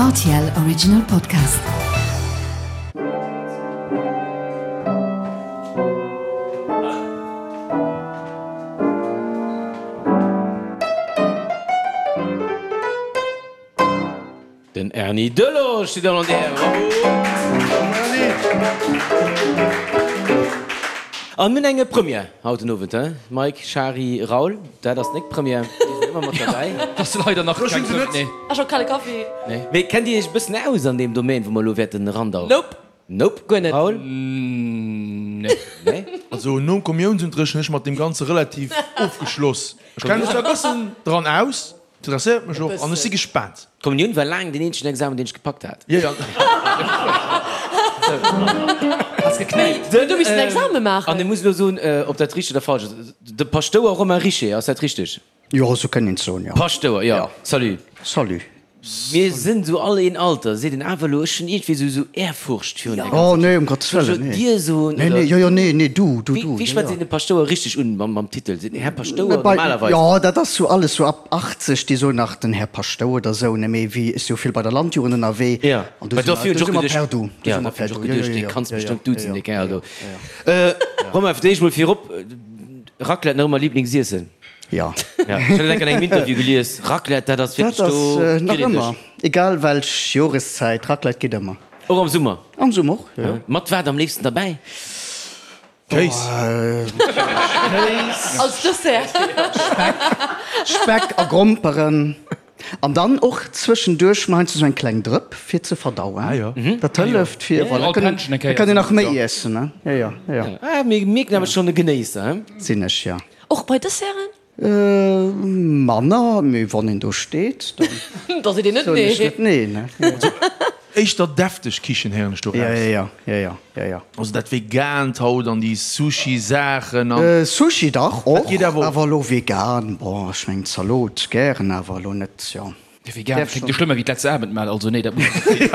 Rtl Original Podcast. Den Erny Delage steet an der Bravo! An mir hunn eng Première haut den Owend, he? Mike, Shari, Raoul, dat ass nek Première, déi sinn ëmmer mat derbäi. Dat ass leider nach keng Première, nee. Ech och kale Kaffi. Nee. Mee kennt Dir Iech e bëssen aus an deem Domaine, wou mer elo wäerten erandauchen? Nope. Nope. Guer net. Raoul? Nee. Nee? Also nom Kommiounsunterricht hunn ech mat deem Ganze relativ ofgeschloss. Ech kenne mech zwar e bëssen dran aus, Interesséiert mech och an ech si gespaant. D'Kommunioun war laang deen eenzegen Examen deen ech gepackt hat. Jo jo. Has geknäipt. Huet du missen Exame maachen? An ech muss elo soen, ob dat richteg oder falsch ass, de Paschtouer Romain Richer, ass dat richteg? Jo, esou kënnt een et soen, jo. Paschtouer, jo. Salut. Salut. Mir sinn esou all een Alter, seet een awer elo, ech hunn iergendwéi esou esou Ehrfurcht virun där ganzer Oh nee, um Gottes Soll ech Wëllen, elo nee. Dir soen Nee, oder? nee, jo, jo, nee, nee, du, du, Wéi du, wéi jo, schwätzt jo. een de Paschtouer richteg un mam mam Titel? Seet een Här Paschtouer Bei, normalerweis? jo, dat ass sou alles sou ab 80, déi soen nach den Här Paschtouer oder sou, ne, mee wéi ech si jo vill bei der Landjugend ënnerwee Ja, an do well si mer, dofir hunn do ech si och mer geduecht, per du, do ja, si mer dofir per hunn ech och du, jo, geduecht, jo, dee jo, kanns jo, jo, bestëmmt jo, duzen, jo, dee Kerl jo, do. jo, jo. Romain, fir d'éischt mol virop, Raclette nach ëmmer Liblingsiessen? Jo. Ja, ech hat dat an engem Interview gelies, Raclette, dat ass Dat wierklech ass do, nach kritt een ëmmer, dech. egal welch Joreszäit, Raclette geet ëmmer. Och am Summer? Am Summer och, jo. Mat wat am léifsten derbäi? Kéis. Kéis. Als Dessert. Speck, Speck a Gromperen. An dann och zwëschenduerch mol heiansdo sou eng kleng Drëpp fir ze verdauen. Ah jo. Dat hëlleft fir, voilà, All kënnen, Pännchen eng da Kéier kann een nach esou, méi jo. iessen, ne? Jo, jo, jo, jo. Ah, mir mierken awer schonn e Genéisser, he? Sinn ech, jo. Och bei Desserten? Manner, mee wann een do steet, dann Da seet een net soen ech nee. net nee, ne? Also éischter defteg Kichen héieren ech do Ja, raus. ja, ja, ja, ja, ja. Also dat Vegaant haut an déi Sushi-Saachen an. Sushi dach Dat och, geet awer och. awer elo vegan, bon, ech mengen Zalot gären, awer elo net, jo. Vegan kléngt jo schlëmmer wéi d'letzte Abendmahl, also nee, dat muss net sinn.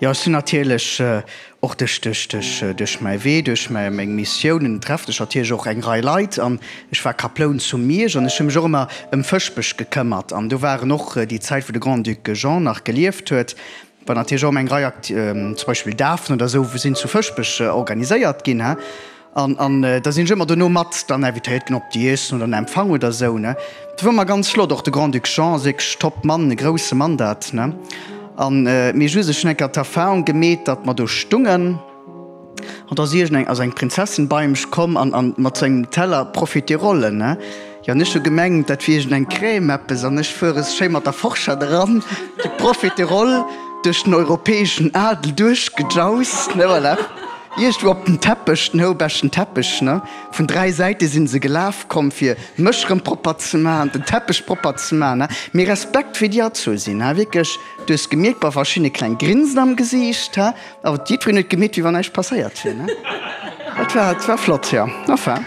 Jo, ech sinn natierlech och duerch, duerch, duerch, duerch mäi Wee, duerch mäi, meng Missiounen treffen ech natierlech och eng Rei Leit an ech war Kaploun zu Miersch an ech hu mech och ëmmer ëm Fëschbech gekëmmert an do waren och déi Zäit wou de Grand-Duc Jean nach gelieft huet, War natierlech och ëm eng Rei Akt, zum Beispill Dafen oder esou sinn zu Fëschbech organiséiert ginn, he. An, an da sinn ech ëmmer dono mat dann invitéiert ginn op d'Iessen oder en Empfang oder esou, ne. Dat war ëmmer ganz flott. Och de Grand-Duc Jean ass wierklech top Mann, e grousse Mann dat, ne. An, mee just, ech hunn eng Kéier d'Erfahrung gemeet, datt mer do stungen. An da ass iergend eng, also eng Prinzessin bei mech komm an, an mat sou engem Teller Profiterollen, ne? Jo, an ech hu gemengt, dat wier iergend eng Crème, eppes, an ech fuere schéi mat der Forschett eran, déi Profiteroll duerch den europäeschen Adel duerchgejaust, ne, voilà. Iergendwou op den Teppech, den houbeschten Teppech, ne? Vun 3 Säite si se gelaf komm, fir mech rëm propper ze maachen, den Teppech propper ze maachen, ne? Mee Respekt, wéi déi erzu sinn, he, wierklech, du hues gemierkt, bei verschiddene kleng Grinsen am Gesiicht, he. Awer jiddwereen huet gemeet, wéi wann näischt passéiert wier, ne? Dat war, dat war flott, jo. Enfin.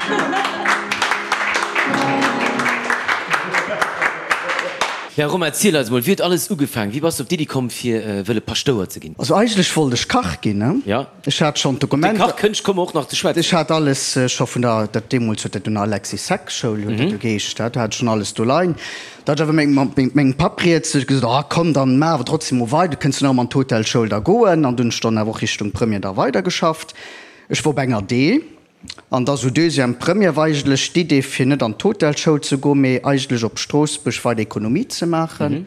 Ja, Romain, erziel eis emol, wéi huet alles ugefaangen? Wéi bass de op d'Iddi komm, fir wëlle Paschtouer ze ginn? Also eigentlech wollt ech Kach ginn, ne? Ja. Ech hat schonn Op déi d'Dokumenter. Kachkënscht komme mer och nach ze schwätzen. Ech hat alles scho vun der, dat deemools huet dat un der Alexis Seck Schoul huet dat jo geheescht, dat hat ech schonn alles do leien. Da hat ech awer mat mengem Papp rieds, huet gesot, ah komm, dann maach awer trotzdem mol weider, du kënns jo nach ëmmer an d'Hotelschoul da goen. An dunn hunn ech dann awer och Richtung Première da weidergeschafft. Ech wor op enger D an da sou Deuxième Première war eigentlech d'Idee fir net an d'Hotelschoul ze goen, mee eigentlech op Stroossbuerg weider Ekonomie ze maachen.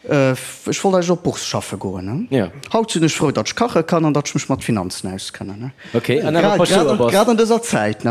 Ech wollt eigentlech op Bourse schaffe goen. Haut sinn ech frou, datt ech kache kann an datt ech mech mat Finanzen auskennen. Grad an dëser Zäit.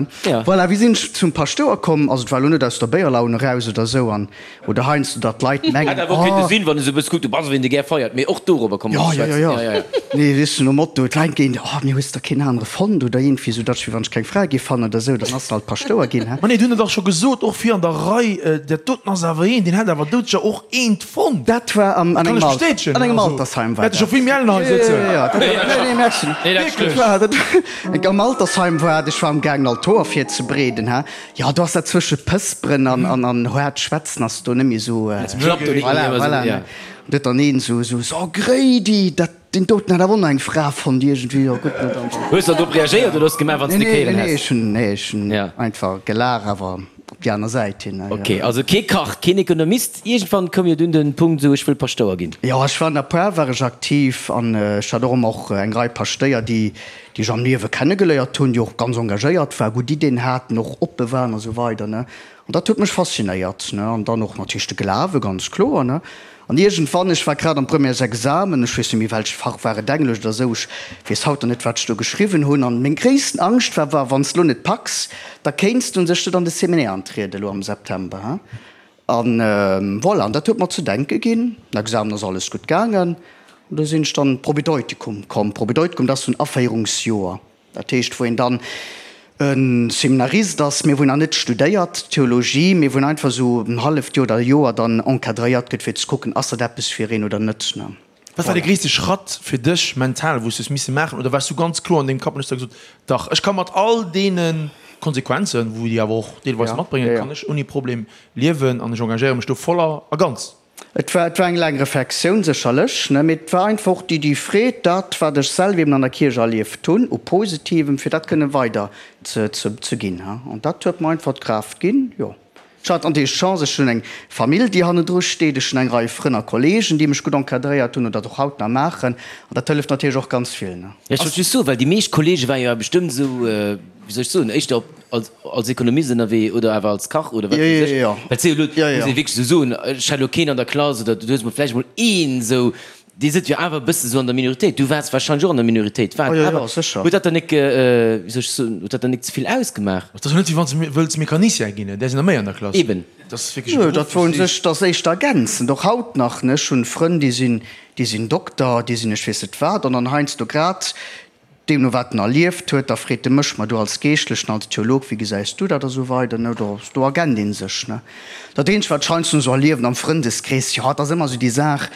Voilà, wéi sinn ech zum Paschtouer komm? Also et war elo net aus der Béierlaun eraus oder esou an oder heiansdo datt d'Leit mengen, Hätt awer och kéinte sinn, wann e sou e bësse kuckt, du bass ewéi een, dee gär feiert. Mee och dorobber komme mer ze schwätzen. Jo, jo, jo. Nee, weess du, nom Motto, d'Leit ginn, oh, mir hues der keen anere fonnt oder iergendwéi esou, datt ech wéi wann ech keng Fra géif fannen oder esou, dann ass se halt Paschtouer ginn. Ma nee, du hunn et dach scho gesot, och fir an der Rei, dat doten ass awer een, deen hätt awer doudsécher och eent fonnt. Dat war an engem Al, an engem Altersheim war dat. Hätte scho vill méi ellen hei sëtzen. Jo, jo, jo, dat war, nee, nee, merci. Nee, dat Dat war, dat war, am Altersheim war dat, ech war am gaangen Altor virzebereeden, ha. Jo, do ass dat zwësche Pësperen an, an, an haart schwätzen ass do net méi esou, voilà, voilà, ne. An do huet dann een esou, esou, so Gréidi, dat, deen doten hat awer och nach eng Fra fonnt iergendwéi, jo gutt, ne, dann. Hues de drop reagéiert oder hues de gemaach, wann s de Nee, nee, kéieren nee, häss? ech hunn, nee, ech hunn einfach gelaach, awer. déi aner Säit hin. Ok, also kee Kach, keen Ekonomist. Iergendwann koum jo dunn den Punkt esou, ech wëll Paschtouer ginn. Jo, ech war an der Par war ech aktiv an ech hat och ëmmer och eng Rei Paschtéier, déi déi ech am Liewe kennegeléiert hunn, déi och ganz engagéiert war, gutt Iddien haten, och oppe waren a sou weider, ne. An dat huet mech faszinéiert, ne. An dann och natierlech de Glawe, ganz kloer, ne. An iergendwann, ech war grad am Premièresexamen, ech weess net méi welcht Fach war et, Englesch oder esou, ech weess haut nach net wat ech do geschriwwen hunn, an meng gréissten Angscht war, war wann s de lo net packs, da kéints du un sech net an de Seminaire antrieden elo am September, hein. An voilà, an dat huet mer ze denke ginn. Den Examen ass alles gutt gaangen, an do sinn ech dann Propedeutikum komm. Propedeutikum, dat ass esou en Aféierungsjoer. Dat heescht, wou een dann e Seminarist ass, mee wou een nach net studéiert Theologie, mee wou een einfach esou en halleft Joer oder e Joer dann encadréiert gëtt, fir ze kucken, ass dat eppes fir een oder net. Wat war de gréisste Schratt fir dech mental, wou s du hues misse maachen? Oder waars du ganz kloer an dengem Kapp an hues da gesot, dach, ech ka mat all deene Konsequenzen, wou déi awer och deelweis matbréngen, kann ech ouni Problem liewen an ech engagéiere mech do voll a ganz? Et war, et war eng laang Reflexioun sécherlech, ne, mee et war einfach och déi, déi Freed, dat, wat ech selwer eben an der Kierch erlieft hunn u Positivem, fir dat kënne weider ze, ze, ze ginn, ha. An dat huet mer einfach d'Kraaft ginn, jo. Ech hat natierlech d'Chance, ech hunn eng Famill, déi hannendru steet, ech hunn eng Rei Frënn a Kollegen, déi mech gutt encadréiert hunn oder dat och haut nach maachen, an dat hëlleft natierlech och ganz vill, ne. Ech wollt just soen, well déi meescht Kollege ware jo bestëmmt esou, wéi soll ech soen, éischter op, als, als Ekonomist ënnerwee oder awer als Kach oder wat weess ech. Well et si jo elo, muss ee wierklech esou soen, ech hat elo keen an der Klass oder du hues mol vläicht mol een esou, dee sëtzt jo awer e bësse esou an der Minoritéit. Du waars warscheinlech och an der Minoritéit. War et awer, huet dat dann nik, wéi soll ech soen, huet dat dann nik ze vill ausgemaach? Et ass jo net, wéi wann s de wëlls Mecanicien ginn, där sinn der méi an der Klass. Eben. Dat ass wierklech e Beruff, Dat wor u sech, dat ass éischter ergänzend, och haut nach, ne. Ech hunn Frënn, déi sinn, déi sinn Dokter, déi sinn ech weess net wat, an dann heiansdo grad Deemno wat en erlieft huet, da freet e mech, Ma du als Geeschtlechen, als Theolog, wéi gesäis du dat? a sou weider, ne. Do, do ergännt ee sech, ne. Dat eenzegt, wat ech heiansdo esou erliewen am Frëndeskrees, jo, et ass ëmmer esou déi Saach,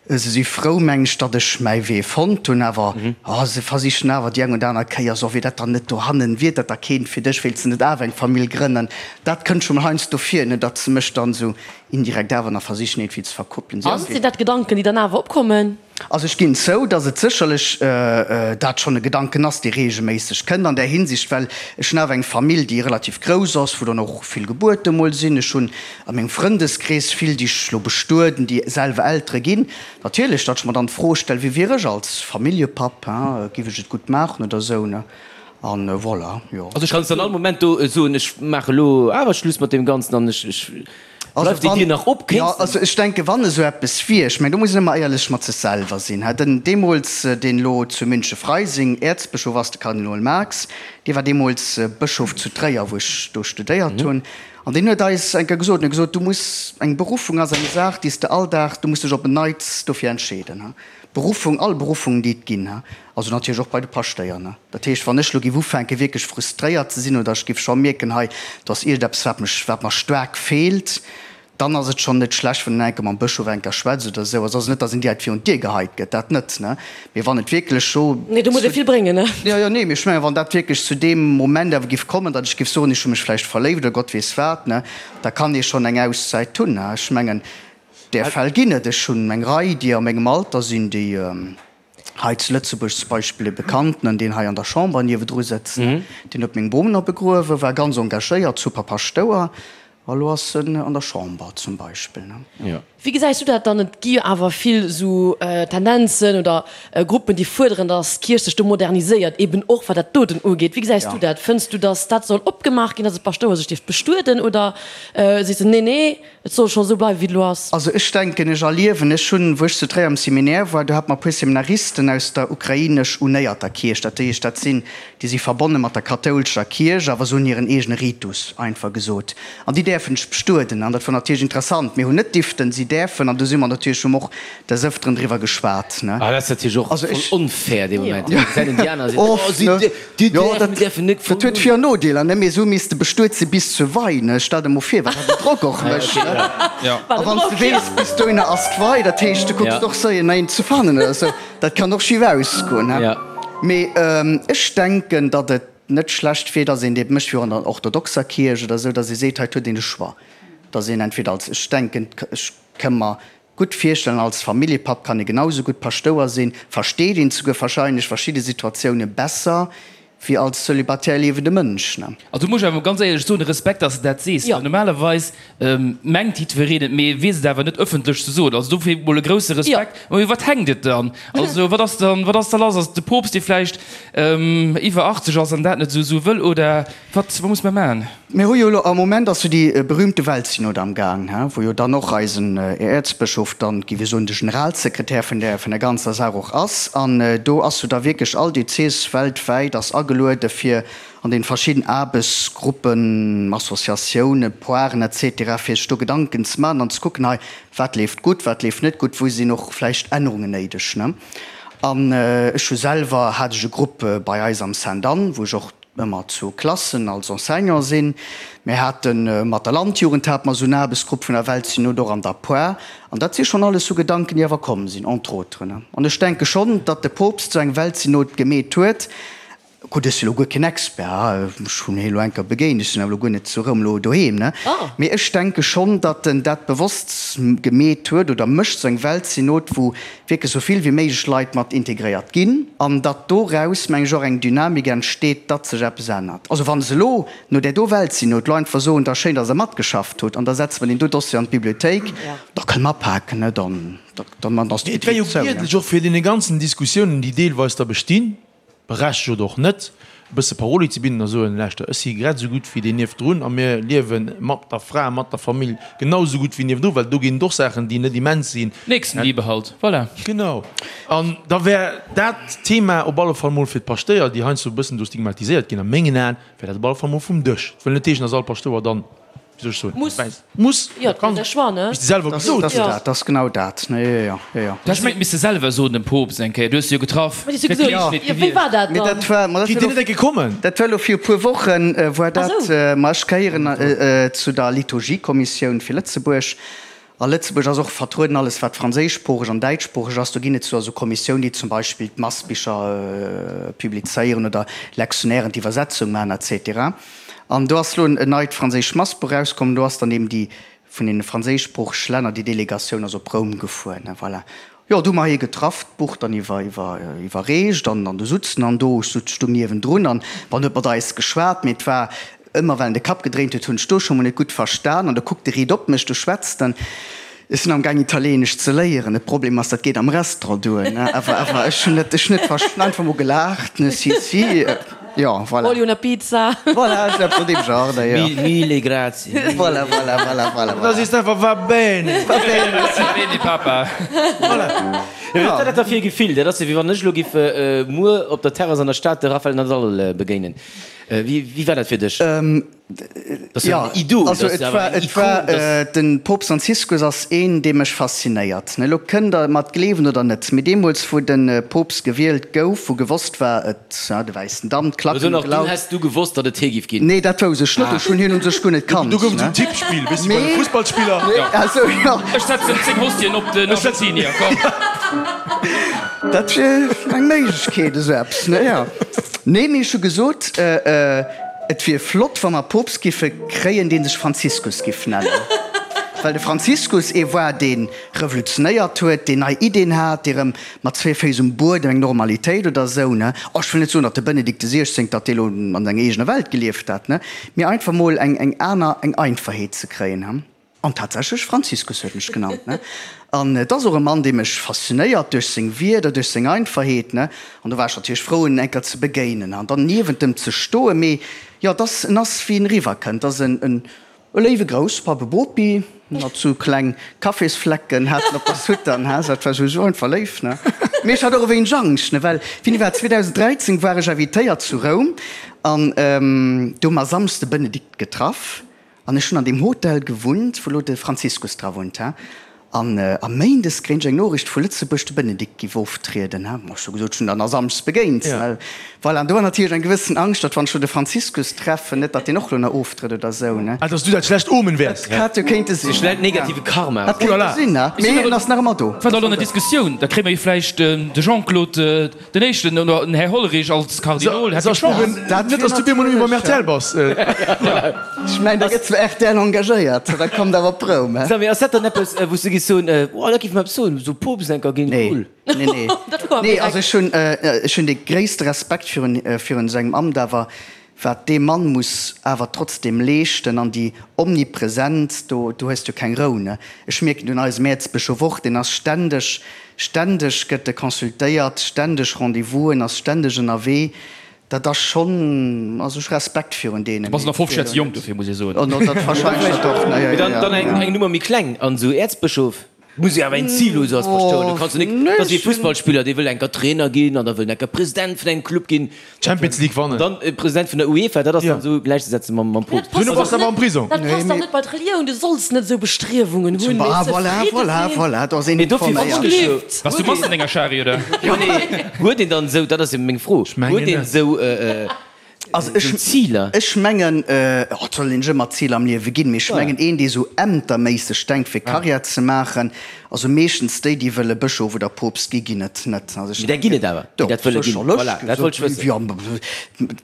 se si frou, meng ech, datt ech mäi Wee fonnt hunn, awer, oh, se versichen awer déi eng oder aner Kéier, so, wier dat dann net dohannen, wier dat da keent fir dech, wéilts de net awer eng Famill grënnen? Dat kënnt scho mol heiansdo vir, ne, datt se mech dann esou indirekt awer nach versichen iergendwéi ze verkuppelen. Si. Sinn dat Gedanken, déi dann awer opkommen? Also ech ginn zou, datt et sécherlech dat schonn e Gedanken ass, dee reegelméisseg kënnt an där Hinsicht, well ech hunn awer eng Famill, déi relativ grouss ass, wou dann och vill Gebuerte mol sinn. Ech hunn a mengem Frëndeskrees vill, déi ech elo bestueden, déi selwer Eltere ginn. Natierlech, datt ech mer dann d'Fro stellen, Wie wier ech als Familljepapp, hein, giff ech et gutt maachen oder esou, ne? An voilà, jo. Also kanns de an all Moment do soen, ech maache elo awer Schluss mat deem Ganzen an ech, ech Bleift déi Dier nach op? Jo, also ech denken, wann esou eppes wier, ech mengen, do muss een ëmmer éierlech mat sech selwer sinn. Den deemools, deen elo zu Münche-Freising Äerzbëschof ass, de Kardinol Marx, dee war deemools Bëschof zu Tréier, wou ech do studéiert hunn, an deen huet eis eng Kéier gesot, en huet gesot, du muss, eng Beruffung ass eng Saach, déi s de all Dag, du muss dech op en Neits dofir entscheeden. Beruffung, all Beruffungen, déi et ginn, also natierlech och bei de Paschtéier. Dat heescht, wann ech elo géif ufänken, wierklech frustréiert ze sinn oder ech géif scho mierken, hei, do ass iergendeppes, wat mech, wat mer staark feelt, dann ass et schonn net schlecht, wann een enke mam Bëschof enker schwätzt oder esou. Also ass et net, datt een direkt virun d'Dier geheit gëtt, dat net, ne, mee wann et wierklech scho. Nee, do muss ee vill bréngen, ne? Jo, jo, nee, mee ech mengen, wann dat wierklech zu deem Moment awer géif kommen, datt ech géif soen, ech hu mech vläicht verléift oder Gott weess wat, ne, da kann ee schonn eng Auszäit hunn, ne. Ech mengen, Där Fäll ginn et. Ech hunn eng Rei, déi a mengem Alter sinn, déi hei zu Lëtzebuerg zum Beispill e Bekannten, deen hei an der Chamber niewedru sëtzt, deen huet meng Bom nach begruewen, war ganz engagéiert, super Paschtouer, a lo ass en an der Chamber zum Beispill. Wéi gesäis du dat dann? Et gi jo awer vill esou Tendenzen oder Gruppen, déi fuerderen, datt d'Kierch sech do moderniséiert, eben och wat dat doten ugeet. Wéi gesäis du dat? Fënns du, datt dat soll opgemaach ginn, datt e Paschtouer sech dierft bestueden, oder sees de, nee, nee, Et soll scho sou bleiwen, wéi et elo ass. Also ech denken, ech erliewen, ech hunn, wou ech zu Tréier am Seminaire war, do hate mer e puer Seminaristen aus der ukrainesch-unéierter Kierch, dat heescht, dat sinn, déi si verbonne mat der kathoulescher Kierch, awer se hunn hiren eegene Ritus, einfach gesot, an déi däerfen sech bestueden. An dat war natierlech interessant. Mir hunn net diften, si däerfen, an do si mer natierlech, hu mer och des Ëfteren driwwer geschwat, ne. Ah, dat ass natierlech och voll onfair dee Moment. Da gesäit een déi aner a seet, Oh, si Déi däerfen, däerfen net Dat huet Vir an Nodeeler, ne? Mee esou misst de bestuet si bis zur Wei, ne? Stell der mol vir, wat dat en Drock och mécht, ne? A wann s de weess, bis dohinner ass d'Wei, dat heescht, du kucks och séier no een ze fannen oder esou. Dat kann och schif ausgoen, ne? Mee ech denken, datt et net schlecht wier, datt een dat mécht, wéi och an der orthodoxer Kierch oder esou, datt ee seet, hei huet een de Choix, datt een entweder als, ech denken, ech ka mer gutt virstellen, als Familljepapp kann ee genau esou gutt Paschtouer sinn, versteet een souguer wahrscheinlech verschidde Situatioune besser. Wéi als celibatär liewende Mënsch, ne? Also do muss ech awer mol ganz éierlech soen, Respekt, dass de dat sees, well normalerweis mengt jiddwereen et, mee weess et awer net ëffentlech ze soen. Also dofir mol e grousse Respekt. Mee u wat hänkt et dann? Also wat ass dann, wat ass da lass? Ass et de Poopst, dee vläicht iwwer 80 ass an dat net esou wëll oder wat, wat muss mer maachen? Mir hu jo elo, am Moment ass jo déi berühmte Weltsynod am Gaang, he, wou jo dann och eisen Äerzbëschof dann, géif ech soen, de Generalsekretär vun där, vun der ganzer Saach och ass. An do ass jo da wierklech all Diözes weltwäit ass ageluede fir an den verschidden Aarbechtsgruppen, Associatiounen, Poiren et cetera, fir sech do Gedanken ze maachen an ze kucken, hei, wat leeft gutt, wat leeft net gutt, wou sinn och vläicht Ännerungen néideg, ne. An ech hu selwer, hat ech e Grupp bei eis am Sainte-Anne, wou ech och, ëmmer zu Klassen als Enseignant sinn. Mir hate mat der Landjugend hate mer esou en Aarbechtsgrupp vun der Weltsynod och an der Poire. An dat si schonn alles sou Gedanken, déi awer komm sinn, entre autres. An ech denke schonn, datt de Poopst esou eng Weltsynod gemeet huet. Gutt, ech si lo guer keen Expert, ech hunn hie lo eng Kéier begéint, ech sinn awer lo guer net zu Roum lo doheem, ne? Mee ech denke schonn, datt en dat bewosst gemeet huet oder mécht, esou eng Weltsynod, wou wierklech esou vill wéi méiglech Leit mat integréiert ginn an datt doraus, meng ech, och eng Dynamik entsteet, datt sech eppes ännert. Also wa se elo no där do Weltsynod elo einfach soen, da schéin, datt Der matgeschafft hutt an da setze mer deen do Dossier an d'Bibliothéik, da kënne mer apaken, ne, dann, dann ass Et wär jo d'Bibliothéik zou, ne. giedlech och fir deene ganzen Diskussiounen, déi deelweis da bestinn, Berechtigt oder och net, e bësse Paroli ze bidden a soen, Lauschter, ech si grad esou gutt wéi deen niewendrun a mir liewe mat der Fra, mat der Famill genau esou gutt wéi niewendru, well do ginn et och Saachen, déi net immens sinn. Nächstenliebe halt, voilà. Genau. An da wär dat Thema op alle Fall mol fir d'Paschtéier, déi heiansdo e bëssen do stigmatiséiert ginn, a mengen Aen, wär dat op alle Fall mol vum Dësch. Et wëll net heeschen, dass all Paschtouer dann Wéi soll ech soen? Muss. Muss. Jo, dat ass e Choix, ne? Wéi s de selwer gesot hues. Dat ass genau dat. Jo, jo, jo, jo. Du häss et misse selwer soen dem Poopst eng Kéier. Du hues se jo getraff. Wat hues du gesot? Jo, wéi war dat Mee dann? dat war, ma dat Déi war net eng Kéier kommen. Dat war elo vir e puer Wochen, war dat. Ma ech gehéieren zu der Liturgiekommissioun fir Lëtzebuerg. A Lëtzebuerg ass och vertrueden alles wat franséischsproocheg an däitschsproocheg ass. Do ginn et zwar esou Kommissioun, déi zum Beispill d'Massbicher publizéieren oder Lectionnairen d'Iwwersetzung maachen et cetera. An do ass elo en neit franséischt Massbuch erauskomm. Do ass dann eben déi vun deene franséischsproochege Länner, déi Delegatioun ass op Roum gefuer. Voilà. Jo, do hu mer hie getraff, d'Buch dann iwwer, iwwer, iwwerreecht an, an do sutzen an do, ech sutz stung niewendrun an bon, huet mat eis geschwat, mee et war ëmmer, well en de Kapp gedréint huet, hunn ech do scho mol net gutt verstan an da kuckt e riit op mech, du schwätzt en, ech sinn am gaang Italienesch ze léieren, de Problem ass, dat geet am Restaurant duer, ne, awer, awer ech hunn net, ech hunn net verst, einfach mol gelaacht, ne, si, si. Jo, voilà. Voglio una pizza. Voilà, esou eppes an deem Genre, da, jo. Mille grazie. Voilà, voilà, voilà, voilà, Da sees de einfach, Va bene. Va bene. Va bene, Papa. Voilà. Jo, wat ass dat da fir e Gefill? Dat ass jo, wéi wann ech elo giff muer op der Terrass an der Stad de Rafael Nadal begéinen. Wéi war dat fir dech? Jo, also et war, et war, de Poopst Franziskus ass een, dee mech faszinéiert. Elo kënnt Der mer et gleewen oder net, mee deemools, wou de Poopst gewielt gouf, wou gewosst war, et, ja, de wäissen Damm, d'Klacken hu gelaut. Dunn häss du gewosst, datt et hie giff ginn? Nee, dat wousst ech net. Ech hunn hien u sech guer net kannt. Do gouf et esou en Tippspill, weess de, bei de Fussballspiller. Also, jo. Ech setzen 10 Hostien op den Argentinier, komm. Dat wier eng Méiglechkeet, esou eppes, ne? Jo. Nee, mee ech hu gesot, Et wier flott, wa mer Poopst giffe kréien, dee sech Franziskus giff nennen. Well de Franziskus ee war, dee revolutionéiert huet, deen nei Iddeen hat, dee rëm mat zwee Féiss um Buedem eng Normalitéit oder esou, ne? Oh, ech wëll net soen, datt de Benedikt de Siechzéngte, datt dee lo an senger eegener Welt gelieft hat, ne? Mee einfach mol eng, eng aner, eng Einfachheet ze kréien, he? An tatsächlech, Franziskus huet mech genannt, ne? An et ass och e Mann, dee mech faszinéiert duerch seng Wierder, duerch seng Einfachheet, ne? An do war ech natierlech frou, en eng Kéier ze begéinen an dann niewent em ze stoen. Mee jo, et ass, en ass, wéi en eriwwerkënnt, et ass en, en e léiwe Grousspapp, e Bopi, mat sou kleng Kaffisflecken hat en op der Soutane, he? Dat war sou einfach léif, ne? Mee ech hat och e wéineg Angscht, ne? Well wéini war et? 2013 war ech invitéiert zu Roum an do hu mer Samschdes de Benedikt getraff. An ech hunn an deem Hotel gewunnt, wou lo de Franziskus dra wunnt, he. An a Méindes kréien ech eng Noriicht vu Lëtzebuerg, de Benedikt giff oftrieden, he. Ech hu gesot, ech hunn dann a Samschdes begéint, ne. Voilà, an do war natierlech eng gewëssen Angscht, datt wann ech lo de Franziskus treffen, net datt deen och lo nach oftrëtt oder sou, ne. Ah, datt s du dat schlecht Omen wäers. Dat hätt jo kéinte sinn. De schlecht negative Karma. Dat kéinte sinn, ne. Mee en ass nach ëmmer do. War da lo an der Diskussioun, da kréie mer jo vläicht de Jean-Claude. Den éischten, oder den Här Hollerich als Kardinol hätt eng Chance. Net dass du bemol net méi beim rtl bass. Ech mengen, da gëtt zwar rtl engagéiert, da kommt awer op Roum, he? Samy, ass dat dann eppes, wou s du gis. giss soen, oh dat géif mer eppes soen, esou Poopst enker ginn, cool. Nee, nee, nee. Also ech hunn, ech hunn dee gréisste Respekt virun, virun sengem Amt, awer wat dee Mann muss awer trotzdem leeschten an déi Omnipresenz, do, do hues du keng Rou, ne. Ech mierken et un eisem Äerzbëschof och, deen ass ständeg, ständeg gëtt e consultéiert, ständeg Rendez-vousen, ass ständeg ënnerwee. Dat ass schonn, also ech hu Respekt virun deenen. Du bass nach 50 Joer ze jonk dofir, muss ee soen. Oh, dat wahrscheinlech och, ne, jo, jo, jo. Dann eng Nummer méi kleng an esou Äerzbëschof muss jo awer een Zil hu sou als Paschtouer. Du kanns jo nik, dat ass wéi e Fussballspiller, dee wëll enker Trainer ginn an da wëll en enker President vun engem Club ginn. Champions League wannen. Dann President vun der UEFA, dat ass dann esou gläichzesetzen mam mam Poopst. Duerno bass de awer am Prisong. Dat passt dach net bei d'Relioun. Du solls net esou Bestriewungen hunn, mee Ah, voilà, zefridde voilà, sinn. voilà, do ass een Mee dofir informéiert. froen ech jo. Bass du Mass an denger Schari, oder? Jo, nee, huet een dann esou, dat ass jo meng Fro, huet een esou Also ech, Ziler? ech mengen, oh, et soll een sech ëmmer Ziler am Liewe ginn, mee ech mengen een, dee sou ämterméisseg denkt fir Karriär ze maachen, also meeschtens déi, déi wëlle Bëschof oder Poopst gi, ginn et net. Also ech Mee där ginn et awer, déi dat wëlle ginn. Voilà, dat wollt ech wëssen. Jo,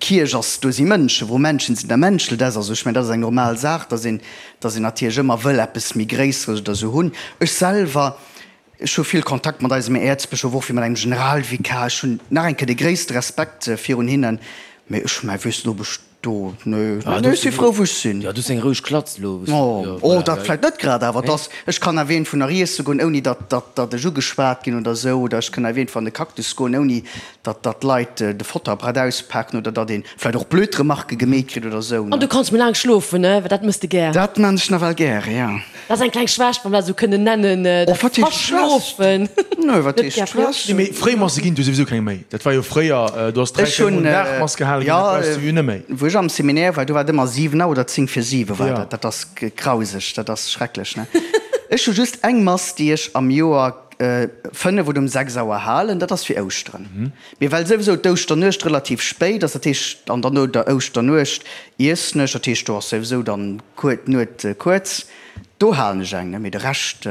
d'Kierch ass, do si Mënschen, wou Menschen sinn, da menschelt es. Also ech mengen, dat ass eng normal Saach, datt een, datt een natierlech ëmmer wëll eppes méi Gréisseres oder sou hunn. Ech selwer, Ech hu vill Kontakt mat eisem Äerzbëschof, och wéi mat engem Generalvikar. Ech hunn nach eng Kéier de gréisste Respekt virun hinnen, mee ech mäi weess net, ob ech do, nee, nee, ech si frou wou ech sinn. Jo, du hues eng roueg Klatz elo. Oh, oh, dat vläicht net grad, awer dass ech kann awer iergendwou nach iesse goen, ouni datt, datt, datt ech ugeschwat ginn oder esou, oder ech kann awer iergendwou an de Cactus goen, ouni datt, datt d'Leit de Fotterbrett auspaken oder datt ee vläicht och blöd Remarquë gemeet kritt oder esou. An du kanns méi laang schlofen, ne? Well dat mëss de gär. Dat maan ech nawell gär, jo. Dat ass eng kleng Schwächt, wann mer dat esou kënnen nennen, dat Verschlofen. Nö, wat heescht Schwächt? Nee, mee Fréimasse ginn et jo souwisou keng méi. Dat war jo fréier, do ass 3, 4 Mol den Dag Mass gehale ginn, dat brauchs du jo net méi. Wou ech am Seminaire war, do war et ëmmer 7 Auer oder 10 vir 7 war dat. Dat ass grauseg, dat ass schrecklech, ne? Ech hu just eng Mass, déi ech am Joer 5 oder um 6 Auer halen, dat ass fir Ouschteren. Mee well souwisou d'Ouschternuecht relativ spéit ass, dat heescht, an dann no der Ouschternuecht iessen ech, dat heescht do ass souwisou dann d'Nuet kuerz, do halen ech eng, ne, mee de Rescht.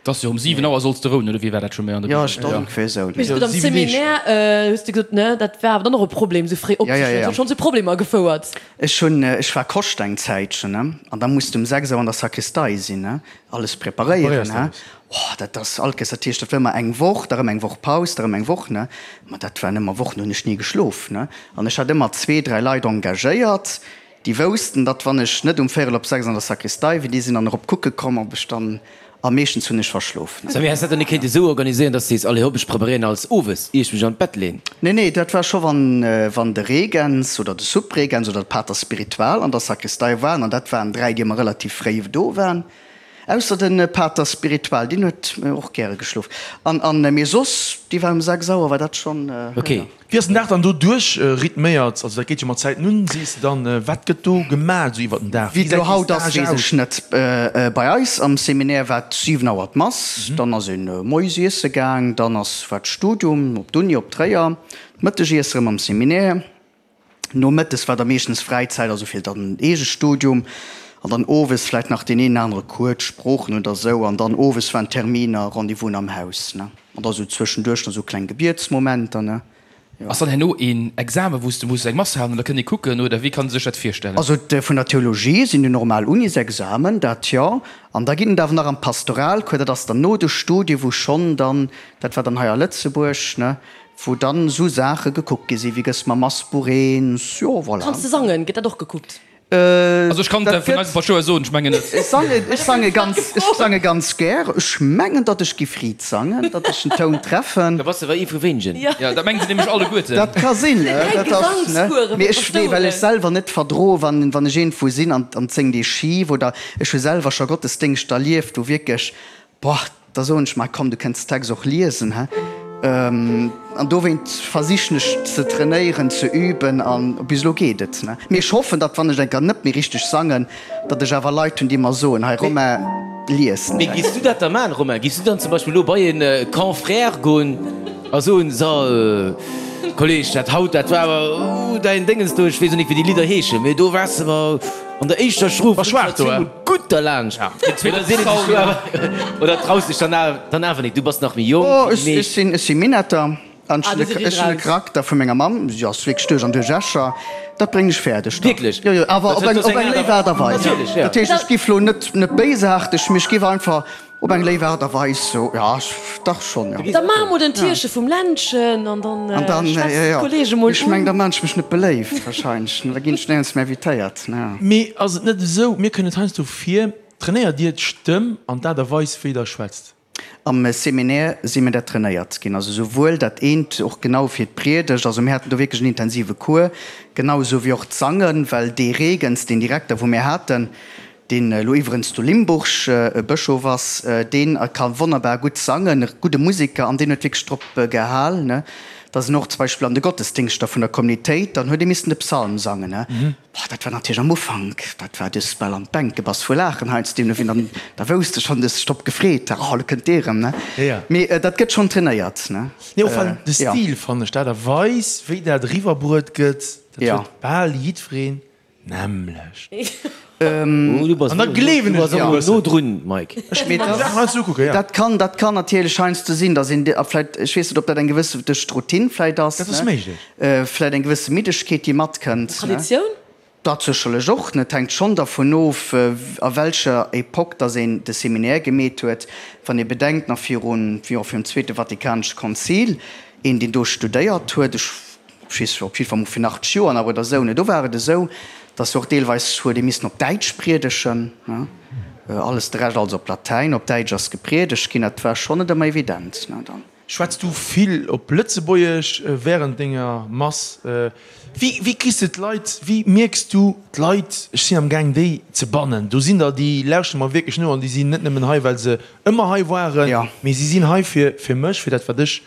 Et ass jo um 7 Auer solls de rouen, oder wéi war dat scho méi an der Bibel? Jo, ech dat ongeféier esou. Mee gutt, am Seminaire hues de gesot, ne, dat war awer dann och e Problem, esou fréi opzestoen, dat huet schonn zu Problemer gefouert. Ech hunn, ech war Koscht eng Zäitchen, ne, an da muss de um 6 Auer an der Sakristei sinn, ne, alles preparéieren, ne. Oh, dat ass alt Kéiers, dat heescht, dat war ëmmer eng Woch, da rëm eng Woch Paus, da rëm eng Woch, ne. Ma dat waren ëmmer Wochen, do hunn ech ni geschlof, ne. An ech hat ëmmer zwee, dräi Leit engagéiert, déi woussten, datt wann ech net um véierel op 6 an der Sakristei wier, déi sinn dann erop kucke komm, ob ech dann, a meeschtens hunn ech verschlof, ne. Samy, häss dat dann net kéinte sou organiséieren, datt s de sees, allez hopp, ech preparéieren alles owes, ier ech mech an d'Bett leen? Nee, nee, dat war scho wann, wann de Regens oder de Subregens oder de Pater spiritual an der Sakristei waren, an dat waren dräi, déi ëmmer relativ fréi do waren. Ausser den Pater spiritual, deen huet och gäre geschlof. An an mee soss, déi war um 6 Auer war dat schonn. Ok. Wéi ass den Dag dann do duerch rhythméiert? Also dat geet jo mat Zäiten un, sees de dann. Wat gëtt do gemaat esou iwwert den Dag? Wéi et elo haut ass, weess ech net. Bei eis am Seminaire war et 7 Auer d'Mass, dann ass een moies iesse gaang, dann ass war d'Studium op d'Uni op Tréier, d'Mëttegiesse rëm am Seminaire. Nomëttes war da meeschtens Fräizäit, also fir dann Eegestudium an dann owes vläit nach deen een anere Cours, d'Sproochen oder sou an dann owes waren Terminer, Rendez-vousen am Haus, ne. An da sou zwëschenduerch nach sou kleng Gebietsmomenter, ne. Jo. Ass dann herno een Examen, wou s de muss eng Mass halen oder kënnt ee kucken oder wéi kann ee sech dat virstellen? Also vun der Theologie sinn déi normal Unisexamen, dat jo. An da ginn et awer nach am Pastoralcours, dat ass dann no de Studie wou schonn dann, dat war dann hei a Lëtzebuerg, ne, Wou dann esou Saache gekuckt gi sinn, wéi gëss mam Massbuch eens, jo voilà. Kanns de sangen? Gëtt dat och gekuckt? Also ech kann et vun eisem Paschtouer soen, ech mengen net. Ech sangen, ech sange ganz, ech sange ganz gär. Ech mengen, datt ech giff riit sangen, datt ech den Toun treffen. Da bass de awer ee vu wéinegen. Jo, dat mengen se nämlech alleguerten. Dat ka sinn, dat ass, ne. Mee ech, nee, well ech selwer net verdroe wann, wann ech iergendwou sinn an, an et séngt ee schif oder ech hu selwer scho Gottesdéngschter erlieft, wou wierklech, Boah, da soen ech mer, komm, du kënns Text och liesen, he? An dowéint versichen ech ze trainéieren, ze üben an bis elo geet et, ne? Mee ech hoffen, datt wann ech eng Kéier net méi richteg sangen, datt ech awer Leit hunn, déi mer soen, hei Romain, lies den Mee Text. giffs du dat da maachen, Romain? Giffs du dann zum Beispill elo bei e Confrère goen a soen, So, Kolleg, dat haut, dat war awer, uh, däin Déngens do, ech weess och nik wéi déi Lidder heeschen, mee do waars de mer An der éischter Strof War schwaach do, eh? Gutt derlaanscht. Oder sinn et déi Schwaach? Oder traus dech dann dann awer nik? Du bass nach méi jonk Oh, wéi ech, déi ech meescht. sinn, ech si Minetter an ech Ah, hunn du de, si ech hunn de raus. Charakter vu menger Mamm. Si ass wierklech duerch an duerch Escher. Dat bréngen ech fäerdeg, dach. Wierklech? Jo, jo, awer Dat op eng, huet op eng eng léif Aart a Weis. Natierlech, ja. Dat heescht, ech giff lo net, net béisaarteg, mee ech giff einfach. Op eng léif Aart a Weis, jo, dach schonn, jo. Da maache mer den Tierche vum Ländchen an dann schwätzt d'Kollege mol un. Ech meng, da maan ech mech net beléift wahrscheinlech, da ginn ech néierens méi invitéiert. Mee ass et net esou, mir kënnen et heiansdo vir, trainéiert Dir d'Stëmm an d'Aart a Weis wéi Der schwätzt? Am Seminaire si mir dat trainéiert ginn, also souwuel dat eent och genau fir d'Priedegt, also mir haten do wierklech en intensive Cours, genau esou wéi och d'Sangen, well dee Regens, deen Direkter wou mir haten, deen elo iwwerens zu Limburg Bëschof ass, deen ka wonnerbar gutt sangen, e gudde Museker, an deen huet wierklech drop gehal, ne, dass en och zum Beispill an de Gottesdingschter vun der Communitéit, dann huet ee missen de Psalm sangen, ne. Boah, dat war natierlech am Ufank, dat war, du hues bal an d'Bänk gebass vu Laachen heiansdo, deemno wéi dann, da wousst de schonn, du hues dech drop gefreet, oh, elo kënnt dee erëm, ne. Mee dat gëtt schonn trainéiert, ne. Nee, och well de Stil, fannen ech, d'Aart a Weis, wéi dat eriwwerbruet gëtt, dat huet bal jiddwereen Nämlecht. An da gleewen ech dir e bëssen. No drun, Mike. Ech muss mer déi Saachen heiansdo ukucken, jo. Dat kann, dat kann natierlech heiansdo sinn, dass een, a vläicht, ech weess net, ob dat eng gewësse, duerch d'Routine vläicht ass, Dat ass méiglech. vläicht eng gewësse Middegkeet, déi matkënnt. Traditioun? Dat sécherlech och. Et hänkt schonn dervun of, a welcher Epoque dass een de Seminaire gemeet huet. Wann ee bedenkt, nach virun, jo, virum Zweete Vatikanesche Konzil, een, deen do studéiert huet, ech Ech weess op jiddwer Fall mol virun 80 Joer nach oder esou, ne, do war et esou, datt och deelweis huet ee missen op Däitsch priedegen, ne, alles, de Rescht alles op Latäin, op Däitsch ass gepriedegt ginn, dat war schonn net ëmmer evident, ne, dann. Schwätz du vill op Lëtzebuergesch während denger Mass? Wéi, wéi kriss de d'Leit, wéi mierks du d'Leit, ech sinn am gaang déi ze bannen, do sinn der déi lauschteren mer wierklech no an déi sinn net nëmmen hei well se ëmmer hei waren, mee si sinn hei fir, fir mech, fir dat wat ech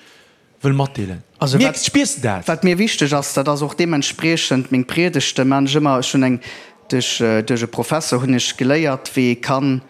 wëll matdeelen. Also Mierks, spiers de dat? Wat mir wichteg ass, dat ass och deementspriechend meng Priedegte maan ech ëmmer. Ech hunn eng, duerch, duerch e Professor hunn ech geléiert, wéi ee kann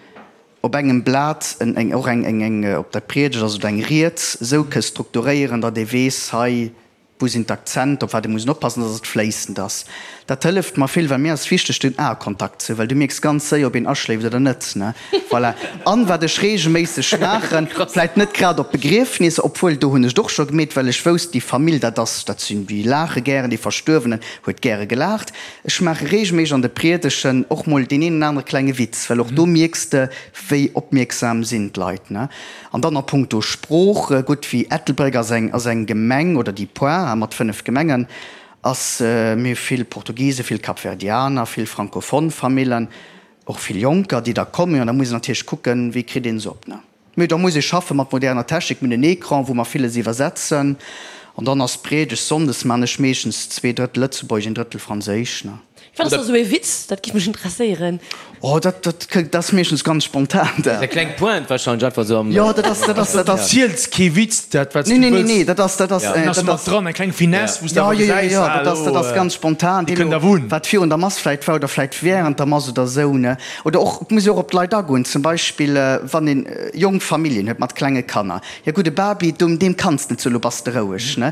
op engem Blat en, eng, och eng, eng, eng, ob dat Priedegt ass oder eng Ried, esou ke strukturéieren, datt ee weess, hei, wou sinn d'Akzenter, op wat ee muss oppassen, datt et fléissend ass. Dat hëlleft mer vill, well mir ass wichteg den Aekontakt ze hunn, well du mierks ganz séier, ob een aschléift oder net, ne? Voilà. An wat ech reegelméisseg maachen, vläit net grad op Begriefnisser, obwuel do hunn ech et och scho gemeet, well ech wousst, déi Famill, dat ass, dat sinn, déi laache gären, dee Verstuerwenen huet gäre gelaacht. Ech maache reegelméisseg an de Priedegen och mol deen een oder anere klenge Witz, well och do mierks de, wéi opmierksam sinn d'Leit, ne? An dann a punkto Sprooch, gutt, wéi Ettelbréck ass eng, ass eng Gemeng, oder déi Poire mat 5 Gemengen, ass, mir hu vill Portugisen, vill Kapverdianer, vill francophone Famillen, och vill Jonker, déi da kommen. An da muss een natierlech kucken, wéi kritt een se op, ne? Mee da muss ee schaffe mat moderner Technik, mir hunn en Ecran, wou mer villes iwwersetzen. An dann ass d'Priedegt sonndes, maan ech meeschtens 2 Drëttel Lëtzebuergesch, een Drëttel Franséisch, ne? Wat ass da sou ee Witz? Dat giff mech interesséieren. Oh, dat, dat, dat ass meeschtens ganz spontan, dat. Eng kleng Pointe wahrscheinlech einfach sou am. Jo, dat ass, dat ass, dat ass. Ziels kee Witz, dat wat s du Nee, nee, wëlls. nee, dat ass, dat ass, Dat ass mat dran, eng kleng Finesse, wou s de awer gesäis, Jo, jo, jo, dat ass, dat ass ganz spontan. Déi kënnt awer un. Wat virun der Mass vläit war oder vläit während der Mass oder sou, ne. Oder och, et muss ee och op d'Leit agoen. Zum Beispill, wann een jonk Familljen huet mat klenge Kanner. Jo gutt, e Baby, deem kanns net soen, lo bass de roueg, ne.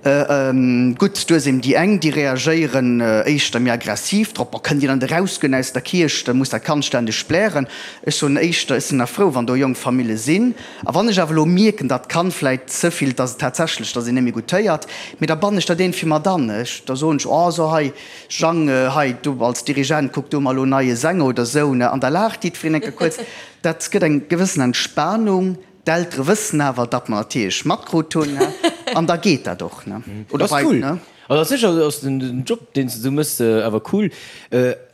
Gutt, du hues eben déi eng, déi reagéieren éischter méi aggressiv drop, Boah, kënnt Dir dann erausgoen aus der Kierch, da muss dat Kand ständeg blären. Ech soen éischter, ech sinn nach frou, wann do jonk Famille sinn. A wann ech awer elo mierken, datt d'Kand vläit ze vill, datt et tatsächlech, datt een net méi gutt héiert, mee da bannen ech dat iergendwéi mat an. Ech, da soen ech, Oh, so hei, Jang, hei, du als Dirigent, kuck du mol elo en neie Sänger oder esou, ne? An da laacht jiddwereen eng Kéier kuerz. Dat gëtt eng gewëssen Entspanung. D'Eltere wëssen awer, datt mer natierlech matkrut hunn, an da geet dat och, ne? Oder ass cool. Also ass sécher ass den Job, deen s de sou mëss, awer cool.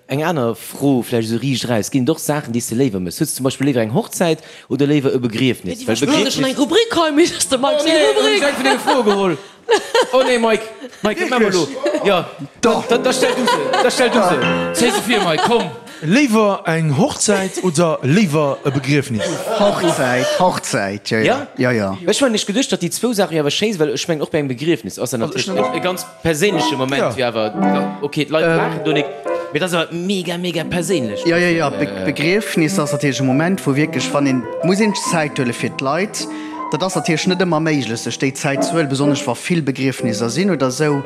Eng aner Fro, vläicht esou riicht eraus, Ginn et och Saachen, déi s de léiwer mëss? Hues de zum Beispill léiwer eng Hochzäit oder léiwer e Begriefnis? Well Begriefnis. Eng Rubrik hei, mee ass de Mike seng Rubrik. Oh nee, hunn ech eng vun denge Froe geholl. Oh nee, Mike, Mike, dat maache mer elo. Jo, da, da stell du se, da stell du se. Zéi se vir, Mike, komm. Léiwer eng Hochzäit oder léiwer e Begriefnis? Hochzäit, Hochzäit, jo, jo, jo, jo. Ech hunn ech geduecht, datt déi zwou Saache jo awer schéi sinn, well ech mengen och bei engem Begriefnis ass dat natierlech e ganz perséinleche Moment, jo awer, okay, d'Leit laachen do nik, mee dat ass awer mega, mega perséinlech. Jo, jo, jo, Begriefnis ass natierlech e Moment, wou wierklech, wann een, muss een Zäit huele fir d'Leit. Dat ass natierlech net ëmmer méiglech, sech déi Zäit ze huelen, besonnesch wa vill Begriefnisser sinn oder esou.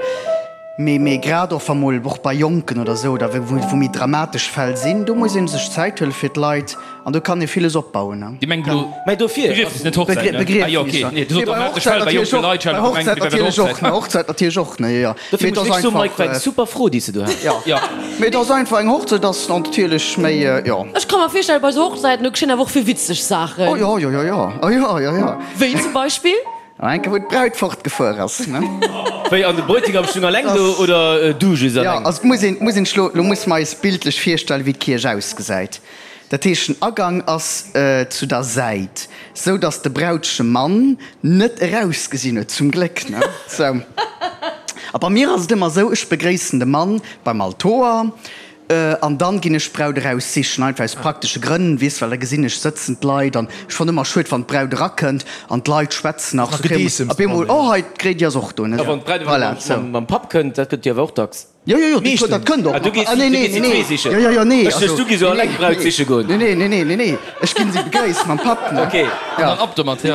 Mee, mee grad och wa mol, och bei Jonken oder esou, oder wou, wou méi dramatesch Fäll sinn, do muss ee sech Zäit huele fir d'Leit an do kann ee villes opbauen, ne. Dir mengt elo Mä dofir, Begriefnis, net Hochzäit, ne? Ah jo, okay. Nee, du sot dramatesch Fäll bei jonke Leit, ech hat elo gemengt, dir wäert bei der Hochzäit. Bei Hochzäit natierlech och, ne, jo, jo. Dofir Mee et muss ass ech soen, Mike, war eng einfach, super Fro, déi s de do has. jo. Jo. Mee et ass einfach, eng Hochzäit ass natierlech méi, jo. Ech ka mer virstellen, bei esou Hochzäiten, do geschéien awer och vill witzeg Saachen. Oh jo, jo, jo, jo, oh jo, jo, jo. Wéi zum Beispill? An eng Kéier wou d'Braut fortgefuer ass, ne? Wéi, an de Bräutigam stung alleng do oder du just Jo, alleng? also et muss een, muss een sech lo, lo muss mer eis bildlech virstellen, wéi d'Kierch ausgesäit. Dat heescht, den Agang ass zu der Säit, sou datt de Brautschemann net erausgesinn huet, zum Gléck, ne? Sou. A bei mir ass et ëmmer sou, ech begréissen de Mann beim Altoer, An dann ginn ech d'Braut eraus sichen, einfach aus praktesche Grënn, weess, well da gesinn ech sëtzen d'Leit an ech fannen ëmmer schued wann d'Braut erakënnt an d'Leit schwätzen nach, Nach Gedeessems op eemol, dran, oh hei d'Gréidi ass och do, ne. A wann d'Braut awer Voilà, sou. mam Papp kënnt, dat gëtt jo awer och dacks. Jo, jo, jo, dat dat kënnt och Ah, du nach. gees Ah, nee, du nee, gees nee, si zwee nee, sichen. jo, jo, jo, nee, Ech duecht, also, du gees nee, eleng nee, d'Braut siche goen. nee, nee, nee, nee, nee, nee, ech ginn si begréisst mam Papp, ne. Ok. An dann ab domat, jo.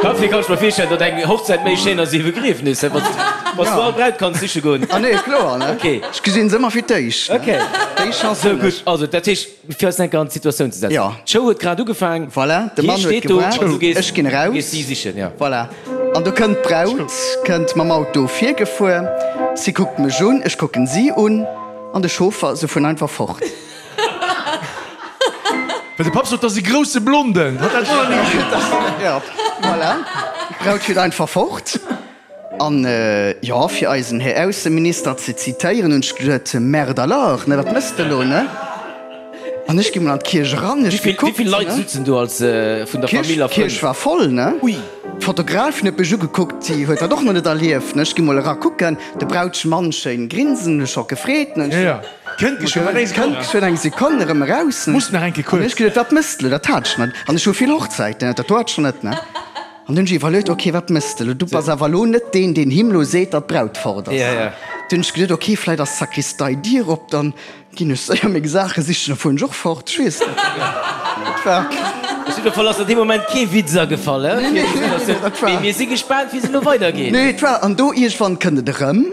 Dofir kann ech mer virstellen, datt eng Hochzäit méi schéin ass wéi e Begriefnis, wann s du all Braut kanns siche goen. Ah nee, kloer, ne? Ok. Ech gesinn se ëmmer fir d'éischt, ne? Ok. Déi Chance Sou hunn gutt. ech. Also, dat heescht, fir eis eng Kéier an d'Situatioun ze setzen. Jo. D'Show huet grad ugefaang. Voilà, de Hie Mann huet steet do an du gewaart, gees, ech ginn du eraus. gees si sichen, ja. Voilà. An do kënnt d'Braut, kënnt mam Auto virgefuer. Si kuckt mech un, ech kucken si un an de Chauffer, se fueren einfach fort. Well de Papp sot, 't ass e grousse Blonden. Hat dat och nach ni gesinn. Ja, voilà. D'Braut fiert einfach fort. An, jo, fir eisen Här Ausseminister ze zitéieren, hunn ech geduet, Merde alors, ne, wat méchs de elo, ne? An ech gi mol an d'Kierch eran, ech gekuckt, ne. Wéi vill Leit sutzen do als vun der Famill a Frënn? D'Kierch war voll, ne. Ui. D'Fotografin huet mech ugekuckt, si huet dat och nach net erlieft, ne. Ech gi mol era kucken, de Brautschmann schéin grinsen, hunn ech scho gefreet, ne. Jo, jo. Kënnt geschwënn nach eng Sekonn. Kënnt geschwënn eng Sekonn erëm eraus. Muss nach eng Kéier kuerz. An ech geduet, wat mëss de elo? Dat hat ech net. An ech hu vill Hochzäiten, dat do hat ech nach net, ne. An dunn hunn ech iwwerluet, ok, wat mëss de elo? Du bass awer elo net deen, deen him elo seet, datt d'Braut fort ass. Dunn hunn ech geduet, ok, vläit ass d'Sakristei-Dier op, dann ginn ech séier meng Saache sichen, da fueren ech och fort. Ech weess net. Et war. Op jidde Fall ass der dee Moment kee Witz agefall, he? Mee mir si gespaant, wéi se elo weidergeet. Nee, et war. An do iergendwann kënnt et erëm.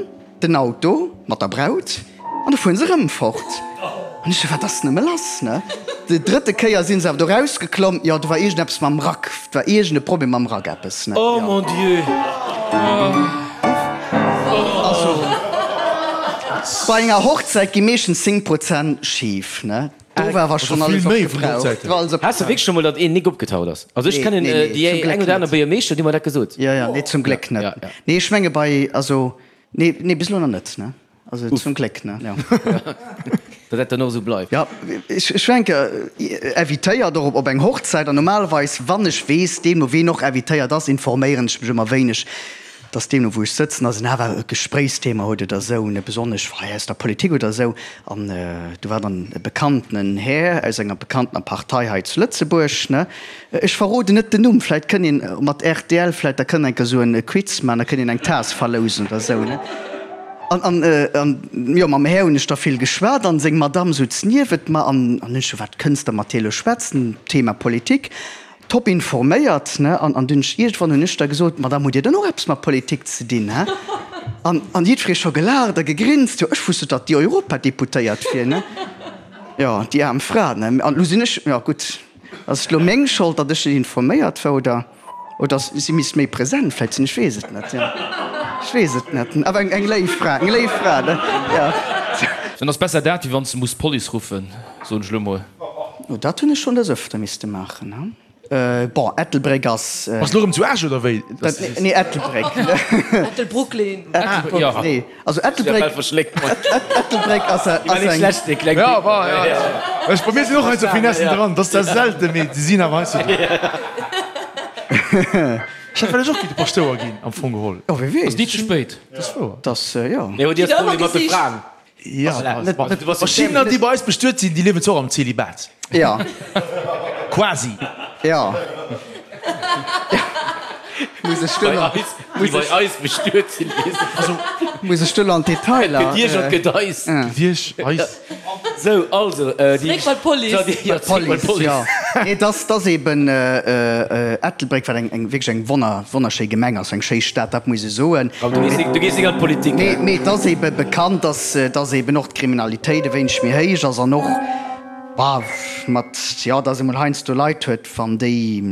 Den Auto mat der Braut an da fueren se rëm fort. An ech sou, wat ass nëmme lass, ne? Déi drëtte Kéier sinn se awer do rausgeklomm, jo, do war iergendeppes mam Rack, do war iergend e Problem mam Rack, eppes, ne? Oh mon Dieu! Also, bei enger Hochzäit gi meeschtens 10 Prozent schif, ne? Do war awer schonn alles opgebraucht. Has de wierklech scho mol, datt een nik opgetaucht ass? Also ech kennen déi eng oder aner Buergermeeschter, déi hu mer dat gesot. Jo, jo, nee, zum Gléck net. Nee, ech menge bei, also, nee, nee, bis elo nach net, ne? Also zum Gléck, ne? Jo. Datt dat dann och esou bleift. Jo, ech war eng Kéier invitéiert och op eng Hochzäit an normalerweis, wann ech weess, deemno ween och invitéiert ass, informéieren ech mech ëmmer wéineg. dass deemno wou ech sëtzen, dass en awer e Gespréichsthema huet oder esou, ne, besonnesch hei aus der Politik oder esou. An do war dann e bekannten Här aus enger bekanntener Partei hei zu Lëtzebuerg, ne, ech verroden net den Numm, vläit kënn een mat rtl, vläit da kënn eng Kéier esou e Quiz maachen, da kënn een eng Taass verlousen oder esou, ne. An, an, an jo, mam Här hunn ech da vill geschwat an seng Madamm sutz niewent mer an, an ech sou, wat kënns de mat deer elo schwätzen, Thema Politik. Top informéiert, ne? An, an dunn iergendwann hunn ech da gesot, Madame, hutt Dir dann och eppes mat Politik ze dinn, hä? An, an jiddweree scho gelaacht a gegrinst, jo, ech wusst net, datt déi Europadeputéiert wier, ne? Jo, déi aarm Fra, ne? An elo sinn ech, jo gutt, ass et elo meng Schold, datt ech net informéiert war, oder, oder si misst méi present vläicht sinn, ech weess et net, jo, ech weess et net. Awer eng, eng léif Fra, eng léif Fra, ne? Jo. Dann ass besser dat, wéi wann s de muss d'Police ruffen, soen ech elo mol. Oh, dat hunn ech schonn des Öfter misste maachen, he? Bon, Ettelbréck ass. Bass lo rëm zu Esch oder wéi? Nee, Ettelbréck. Ettelbrooklyn. Ettelbréck, nee. Also Ettelbréck. Ettelbréck ass eng. Ja, war, ja. Ech, bei mir sinn och heiansdo Finessen dran. Dat ass zwar selten, mee se sinn awer heiansdo dran. Ech hätt vläicht och gi de Paschtouer ginn, am Fong geholl. Oh, wie weess. Ass ni ze spéit. Dat ass wouer. Dat, jo. Mee hutt Dir e Problem mat de Fraen? Ja, verschiddener déi bei eis bestuet sinn, déi liewen zwar och am Zelibat. Ja. Quasi. Ja. Muss ech do nach. Déi bei eis bestuet sinn, weess ech. Also. Muss ech do nach an d'Detailer. Et gëtt Iech an et gëtt eis. Gëtt Iech, eis. Sou, also, déi. Zréck bei d'Police. Ja, zréck bei d'Police. Ja. Nee, et ass, et ass eben Ettelbréck, wat eng, eng wierklech eng wonner, wonnerschéi Gemeng ass, eng schéi Stad, dat muss ee soen. Komm, du gees, du gees nik an d'Politik, Nee, mee et ass ebe bekannt, dass, dass eben och d'Kriminalitéit e wéineg méi héich ass an och, bah, mat, jo, dass ee mol heiansdo Leit huet, wann déi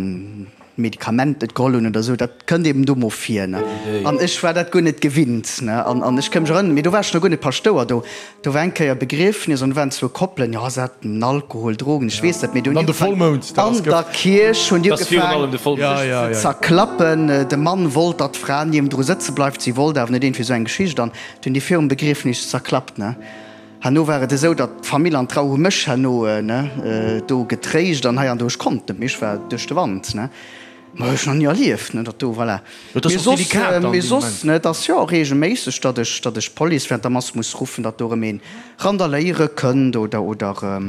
Medikament net geholl hunn oder esou, dat kënnt eben do mol vir, ne. An ech war dat guer net gewinnt, ne. An, an ech ka mech erënneren, mee do war ech nach guer net Paschtouer, do, do war eng Kéier Begriefnis an do waren zwou Koppelen, jo, se haten Alkohol, Drogen, ech weess net, mee do hunn déi ugefaangen, an der Kierch hunn déi ugefaangen, sech ze zerklappen. De Mann wollt, datt d'Fra niewendru sëtze bleift, si wollt awer net, iergendwéi esou eng Geschicht. An du hunn déi virum Begriefnis zerklappt, ne. Herno war et esou, datt d'Famill an d'Trau hu mech herno, ne, do getréischt an hei an do. Ech konnt net méi, ech war duerch de Wand, ne. Ma hu ech nach ni erlieft, ne, datt do, voilà. Mee soss, mee soss, ne, et ass jo och reegelméisseg, datt ech, datt ech d'Police während der Mass muss ruffen, datt do erëm een randaléiere kënnt oder, oder,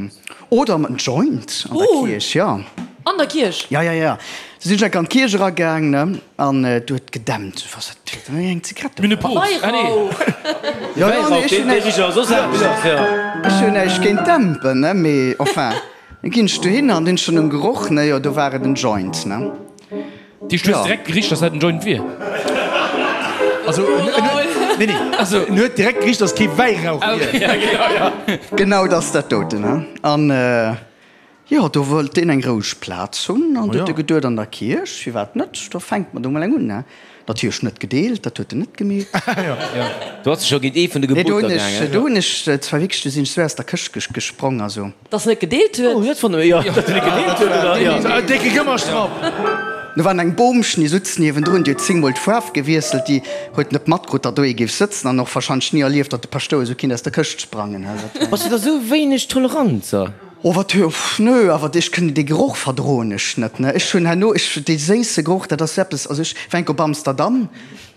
oder en Joint an der Kierch, jo. An der Kierch? Ja, ja, ja. Du sinn ech enk an d'Kierch eragaang, ne, an do huet gedämpt. Ech was dat huet eng Zigarette. Mir Paus. Ah nee. Ja, ja, nee, ech hunn näischt, ech hunn näischt géint Dämpen, ne, mee enfin, da ginn ech dohin an hunn schonn um Geroch, ne, jo, do war et en Joint, ne. Déi hues direkt gericht, dass dat en Joint wier. Also, nee, nee, also, en huet direkt gericht, dass kee Wäirauch wier. Genau, dat ass dat doten, ne, an. Jo, do wollt deen eng roueg Plaz hunn an du huet e geduet, an der Kierch, firwat net, do fänkt mer do mol eng un, ne? Natierlech net gedeelt, dat huet en net gemeet. Do ass e scho géint ee vun de Geboter gaangen. Do hunn ech zwar wierklech, do sinn ech sou aus der Këscht gesprong, also. Dass en net gedeelt huet? Oh, dat fanne mer, jo, datt en net gedeelt huet, oder? Jo. En décke Gëmmerstrapp! Do war eng Boomchen, déi sutz niewendrun, déi huet zéngmol d'Faarf gewiesselt, déi huet net matkrutt, datt do ee géif sëtzen an och warscheinlech ni erlieft, datt de Paschtouer esou kinnt aus der Këscht sprangen. Bass du da sou wéineg tolerant, sa? Oh wat hu, nö, awer ech kënn dee Geroch verdroen ech net, ne. Ech hunn herno, ech, dee séisse Geroch, dat ass eppes, also ech war enk op Amsterdam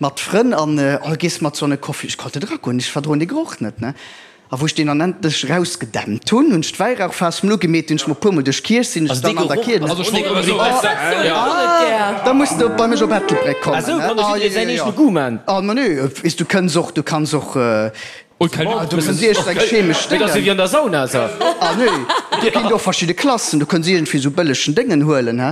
mat Frënn an, oh gees mat sou an e Coffee, ech konnt net eragoen, ech verdroen dee Geroch net, ne. A wou ech deen dann endlech erausgedämpt hunn, hunn ech d'Wäirauchfaass mol ugemeet, hunn ech mol e puermol duerch d'Kierch, sinn ech dann an der Kierch, Also ech wollt nëmme soen, ah, da muss de bei mech op Ettelbréck kommen, ne. Ah, jo, jo, jo. Ah, ma nö, weess, du kënns och, du kanns och. Du kënns iergend eng chemesch Déngen. Dat ass jo wéi an der Sauna, sa. Ah nee, do ginn et och verschidde Klassen. Du kënns iergendwéi esou bëllegen Déngen huelen, he?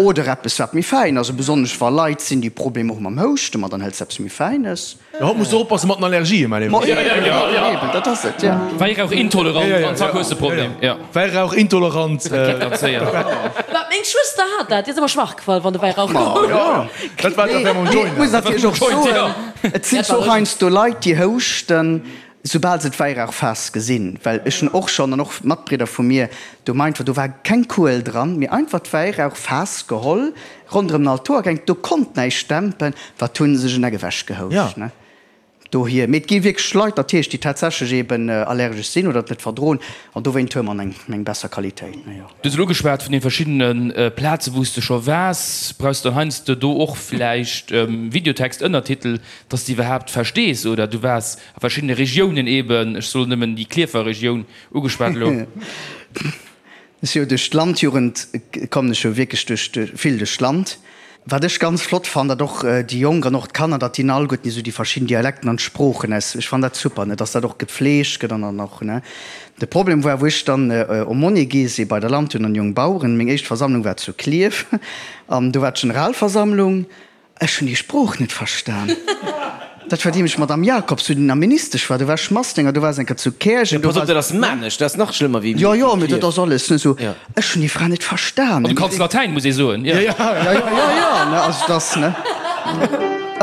Oder eppes, wat méi fäin ass. Besonnesch wa Leit sinn, déi Problemer hu mam Houschten, ma dann hëls de eppes méi Fäines. Jo, haut muss de oppasse mat den Allergien, mäi Léiwen. Ma eben, eben, dat ass et, ja. Wäirauch-intolerant an zack hues de Problem, ja. Wäirauch-intolerant. Dat geet ganz séier. Mä meng Schwëster hat dat, déi ass ëmmer schwach gefall, wann de Wäirauch koum. Ma jo, dat war d'Affär mam Joint. Mee et muss natierlech och soen, Et sinn zwar och heiansdo Leit, déi houschten, soubal se d'Wäirauchfaass gesinn. Well ech hunn och schonn, an och Matbridder vu mir, do meint, do war keng Kuel dran, mee einfach d'Wäirauchfaass geholl, ronderëm den Altoer gehänkt, do konnt näischt dämpen. Wat hunn se sech en Eck ewech gehouscht, ne? Dohier. Mee et gi wierklech Leit natierlech, déi tatsächlech eeben allergesch sinn oder et net verdroen. An dowéint huele mer eng eng besser Qualitéit, ne, jo. Du hues elo geschwat vun den verschiddene Plaze wou s de scho waars. Brauchs de dann heiansdo do och vläicht Videotext, Ënnertitel, dass de iwwerhaapt verstees? Oder du waars a verschiddene Regiounen eben, ech soen nëmmen déi Klierfer Regioun ugeschwat elo. Ech si jo duerch d'Landjugend kommen ech jo wierklech duerch vill duerch d'Land. Wat ech ganz flott fannen, datt och déi Jonk an och d'Kanner, datt déi alleguerten esou déi verschidden Dialekten an d'Sproochen aus, ech fannen dat super, ne, datt dat och gepflegt gëtt an dann och, ne. De Problem war, wou ech dann Aumônier gi si bei der Landjugend an Jong Baueren, meng éischt Versammlung war zu Klierf an do war d'Generalversammlung Ech hunn déi Sprooch net verstan. Dat war déi mech Madame Jacobs, wou déi nach Ministesch war. Do war ech Massdénger, do war se eng Kéier zu Käerjeng. Pass op, dat ass Maarnech, dat ass nach schlëmmer wéi Jo, jo, mee dat ass alles net esou. Ech hunn déi Fra net verstan. An du kanns Latäin, muss ee soen. Jo, jo, jo, jo, ne, also dat ass, ne.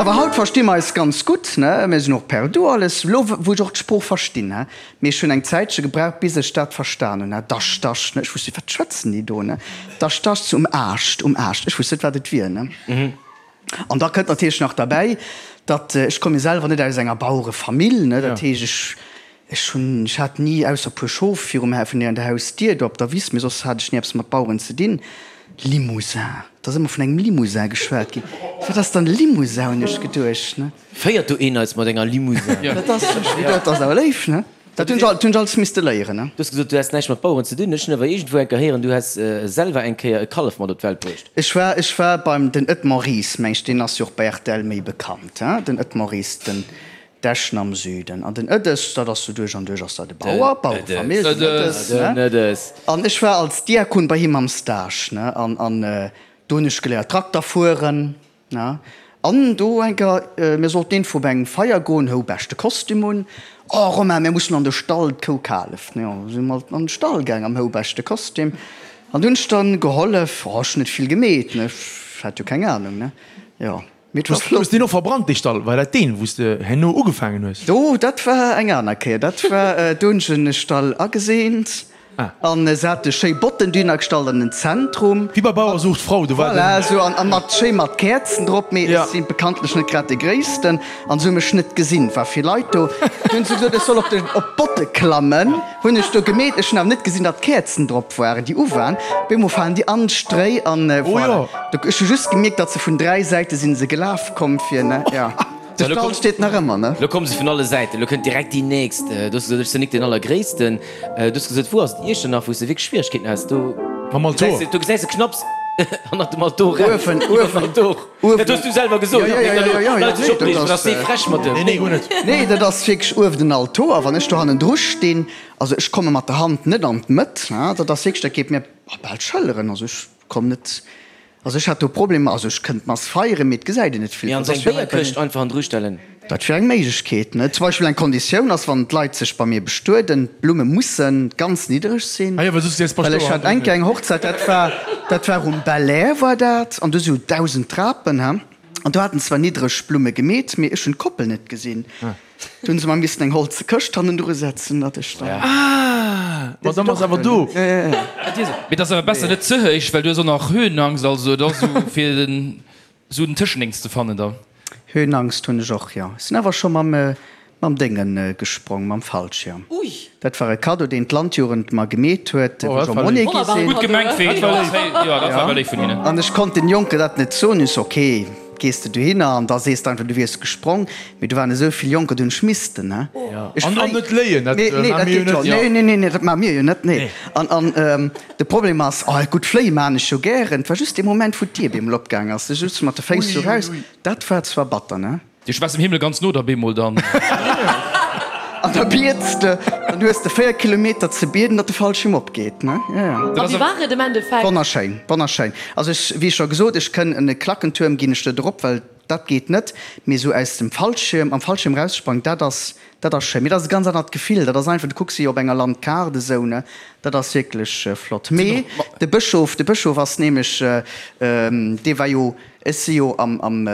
Awer haut versti mer eis ganz gutt, ne. Mir sinn och per du alles, elo wou ech och d'Sprooch verstinn, ne. Mee ech hunn eng Zäitche gebraucht, bis ech dat verstan hunn, ne. Dasch, dasch, ne. Ech wusst net, wat schwätzen déi do, ne. Dasch, dasch, um Aascht, um Aascht. Ech wusst net, wat et wier, ne. An da kënnt natierlech nach derbäi, datt, ech komme jo selwer net aus enger Bauerefamill, ne, dat heescht, ech, ech hunn, ech hat ni, ausser e puer Schof virum, vun der Hausdier do op der Wiss, mee soss hat ech ni eppes mat Baueren ze dinn. Limousin, et ass ëmmer vun engem Limousin geschwat ginn. Wat ass dann e Limousin, hunn ech geduecht, ne. Féiert do een eis mat enger Limousin? Dat ass, dat ass awer léif, ne? Dat hunn ech alles misste léieren, ne? Du hues gesot, du häss näischt mat Baueren ze dinn. Ech hunn awer iergendwou eng Kéier héieren, du häss selwer eng Kéier e Kallef mat op d'Welt bruecht. Ech war, ech war beim, den Edmond Ries, meng ech, deen ass jo och bei rtl méi bekannt, hein, den Edmond Ries, den. D'Eschen am Süden. An den Ëdes, dat ass sou duerch an duerch ass dat e Bauer, Bauerefamill, den Ëdes, ne? An ech war als Diakon bei him am Stage, ne? An, an do hunn ech geléiert Trakter fueren, ne? An do eng Kéier, mir sollten iergendwou op eng Feier goen, hou beschte Kostüm un. Oh Romain, mir mussen an de Stall, d'Kou kaleft, ne? Jo, si mer an de Stall gaang am hou beschte Kostüm. An do hunn ech dann gehollef, oh, ech hunn net vill gemeet, ne? Ech hat jo keng Ahnung, ne? Jo. Mee et war flott. Hues deen och verbrannt, dee Stall? War dat deen, wou s de herno ugefaangen hues? Do, dat war eng aner Kéier. Dat war, do hunn ech en Stall ageseent an se hate schéi Botten dohinner gestallt an den Zentrum. Wéi bei Bauer sucht Frau, do war den. Voilà, esou an mat, schéi mat Käerzen drop. Mee ech si bekanntlech net grad dee Gréissten an se hu mech net gesinn. Et war vill Leit do. Du hunn se gesot, ech soll op de, op d'Botte klammen. Hunn ech do gemeet. Ech hunn awer net gesinn, datt Käerzen drop. Waren déi u waren, op eemol falen déi an d'Stréi an voilà. Ech hu just gemierkt, datt se vun 3 Säite sinn se gelaf komm fir, ne, jo. De Stall steet nach ëmmer, ne. Lo komme se vun alle Säiten, lo kënnt direkt déi nächst. Du hues gesot, ech sinn nik deen Allergréissten. Du hues gesot, wou ass et Iechternach, wou s de wierklech Schwieregkeeten has? Do Mam Altor. do gesäis de knapps hannert dem Altor eraus. Uewen, uewen, Altor. uewen. Dat hues du selwer gesot. Jo, jo, jo, jo, jo, Leit sech nee, opreegen, dat ass dee frech mat dem. Nee, nee, guer net. Nee, dat ass wierklech uewen den Altor. Wann ech do hannendru stinn, Also ech komme mat der Hand net an d'Mëtt, dat ass wierklech, dat geet mir bal d'Schëlleren. Also ech komm net, also ech hat do Problemer, also ech kënnt d'Mass feieren, mee et gesäit een net vill. Mee an seng Béierkëscht einfach hannendru stellen. Dat wier eng Méiglechkeet, ne? Zum Beispill eng Konditioun ass, wann d'Leit sech bei mir bestueden, d'Blumme musse ganz niddereg sinn. Ah jo, well soss gesäis Well ech hat eng Kéier eng Hochzäit, dat war, dat war um Belair war dat, an do si jo 1.000 Trapen, he, an do haten zwar niddereg Blumme gemeet, mee ech hunn d'Koppel net gesinn. Do hunn se mer missen eng holze Këscht hannendru setzen, datt ech dann. Ah, ma dann ass awer do. Mee et ass awer besser net ze héich, well du hues och nach Höhenangst, also et ass esou fir den esou den Tëschendéngs ze fannen da. Höhenangst hunn ech och, jo. Ech sinn awer scho mam mam Dénge gesprong, mam Fallschirm. Ui. Dat war e Cadeau, deen d'Landjugend mer gemeet huet, wou ech am Monnet gi sinn. Gutt gemengt, wéi dat war awer léif vun hinnen. An ech konnt den Jonken dat net soen. Ech so, ok, gees de dohinner an da sees de einfach, du wiers gesprong. Mee do waren esou vill Jonker, do hunn ech missten, ne. Ech An net léien, dat maache mir jo net. Nee, nee, nee, nee, dat maache mir jo net, nee. An, an de Problem ass, oh gutt, fléie maachen ech jo gären. Et war just dee Moment, wou d'Dier bemol opgaang ass, du sutz mat de Féiss sou raus, dat war zwar batter, ne. Ech war dem Himmel ganz no da bemol dann. An da biets de, dann hues de 4 Kilometer ze bieden, datt de Fallschierm opgeet, ne? Jo, jo. A wéi war et am Endeffekt? Wonnerschéin, wonnerschéin. Also ech, wéi scho gesot, ech kënn en e Klackentuerm ginn ech net erop, well dat geet net, mee esou aus dem Fallschierm, am Fallschierm raussprangen, dat ass, dat ass schéin. Mee dat ass e ganz anert Gefill, dat ass einfach, du kucks wéi op enger Landkaart esou, ne? Dat ass wierklech flott. Mee de Bëschof, de Bëschof ass nämlech, dee war jo, Ech si jo am am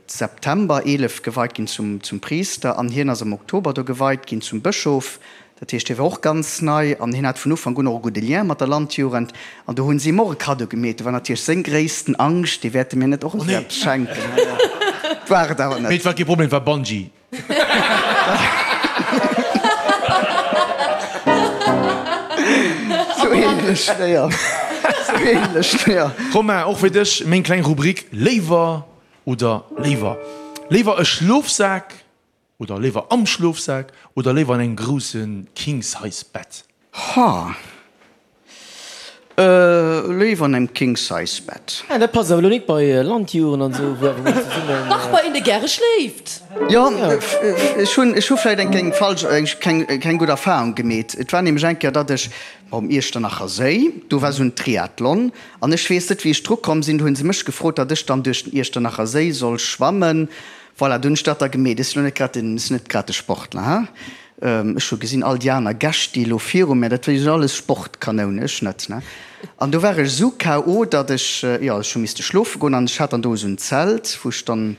September 11 geweit ginn zum zum Priister an hien ass am Oktober do geweit ginn zum Bëschof. Dat heescht, hie war och ganz nei an hien hat vun Ufank un och e gudde Lien mat der Landjugend an do hunn si him och e Kaddo gemeet. Do war natierlech seng gréissten Angscht, déi wäerte mir net och esou eppes schenken. War et awer net. Mee et war kee Problem, et war Bungee. Sou ähnlech, jo. Sou ähnlech, jo. Romain, och fir dech meng kleng Rubrik Léiwer oder léiwer. Léiwer e Schlofsak oder léiwer am Schlofsak oder léiwer an engem grousse King-Size-Bett? Ha. Léiwer an engem King Size Bett. Ah, dat passt awer elo nik bei Landjuren an esou, wou awer mol zesummen. Dach, bei een dee gäre schléift. Jo, ech hunn, ech hu vläit eng keng falsch, eng keng, keng gutt Erfahrung gemeet. Et war nämlech eng Kéier, datt ech um Iechternacher Séi, do war esou en Triathlon, an ech weess net wéi ech dru komm sinn, do hunn se mech gefrot, datt ech dann duerch den Iechternacher Séi soll schwammen. Voilà, do hunn ech dat da gemeet. Ech sinn elo net grad den, ech sinn net grad de Sportler, ha. Ech hu gesinn, all déi aner Gäscht, déi elo viru mär, dat sinn alles Sportkanounen, ech net, ne. An do war ech esou KO. datt ech, jo, ech hu misste schlofe goen an ech hat dann do esou en Zelt, wou ech dann,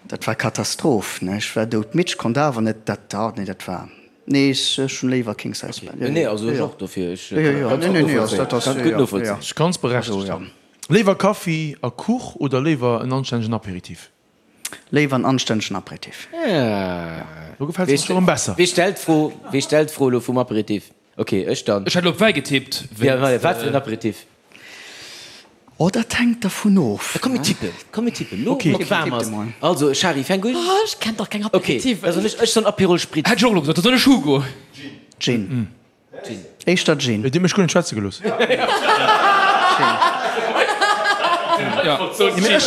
dat war Katastroph, ne. Ech war doudmidd, ech konnt awer net, dat, ah, nee, dat war, nee, ech hunn léiwer King Size Bett. Nee, also ech och dofir, ech kann et gutt novollzéien, kann et gutt novollzéien. Ech ganz berechtegt. Léiwer Kaffi a Kuch oder léiwer en anstännegen Apéritif? Léiwer en anstännegen Apéritif. Do gefält se mer scho rëm besser. Wee stellt d'Fro? Wee stellt d'Fro elo vum Apéritif? Ok, ech dann. Ech hätt elo op Wäi getippt. Ja, wat fir en Apéritif? Oh, dat hänkt dervun of. Komm mir tippen, komm mir tippen elo, wou et waarm ass. Also, Shari, fänk un. Oh, ech kenn dach keng Apéritiven. Ok, da soen ech, ech soen Aperol Spritz. Hätt ech och elo gesot, da soen ech Hugo. Gin. Éischter Gin. Dir hutt mech guer net schwätze gelooss.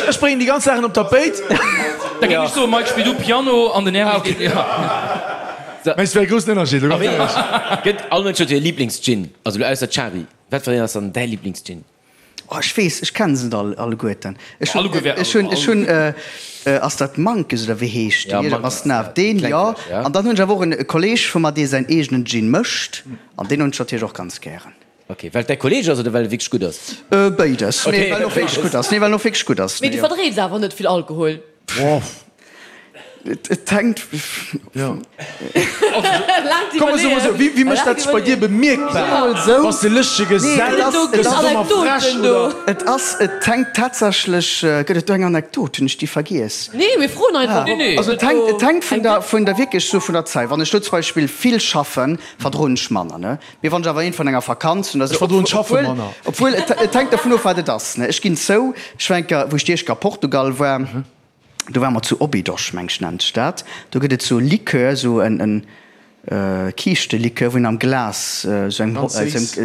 Ech bréngen déi ganz Saachen op d'Tapéit. Da géing ech soen, Mike, spill du Piano an den Erich geet. Mä et wär e groussen Ënnerscheed, elo ganz éierlech. Gëtt all Mënsch huet jo e Liblingsgin, also elo ausser d'Shari. Wat fir een ass dann däi Liblingsgin? Oh, ech weess, ech kennen se net all, alleguerten. Ech hunn, ech hunn, ech hunn, ass dat Mankes oder wéi heescht deen? Ja, Mankes, deen, jo. An dann hunn ech awer och en Kolleeg vu mer, dee säin eegenen Gin mécht, an deen hunn ech natierlech och ganz gären. Ok, well et däi Kolleeg ass oder well e wierklech gutt ass? Béides. Nee, well en och wierklech gutt ass. Nee, well en och wierklech gutt ass. Mee du verdrees awer net vill Alkohol? Et hänkt. Jo. Komm mer soe mol esou, wéi mécht dat sech bei dir bemierkbar? Bass de lëschtege Gesell? Gëss du domat frech oder? Et ass, et hänkt tatsächlech, gëtt et do eng Anekdot? Hunn ech déi vergiess? Nee, mir froen einfach. Nee, nee. Also et hänkt, et hänkt vun der, vun der wierklech sou vun der Zäit. Wann ech do zum Beispill vill schaffen, verdroen ech manner, ne? Mee wann ech awer eent vun enger Vakanz hunn, Ech verdroen d'Schaffe manner. Obwuel, et hänkt dervun of, wat et ass, ne? Ech ginn zou, ech war eng Kéier, wou ech déi éischt Kéier a Portugal war, Do ware mer zu Óbidos, meng ech nennt sech dat. Do gëtt et sou e Likör, sou en Kiischtelikör, wou een am Glas sou eng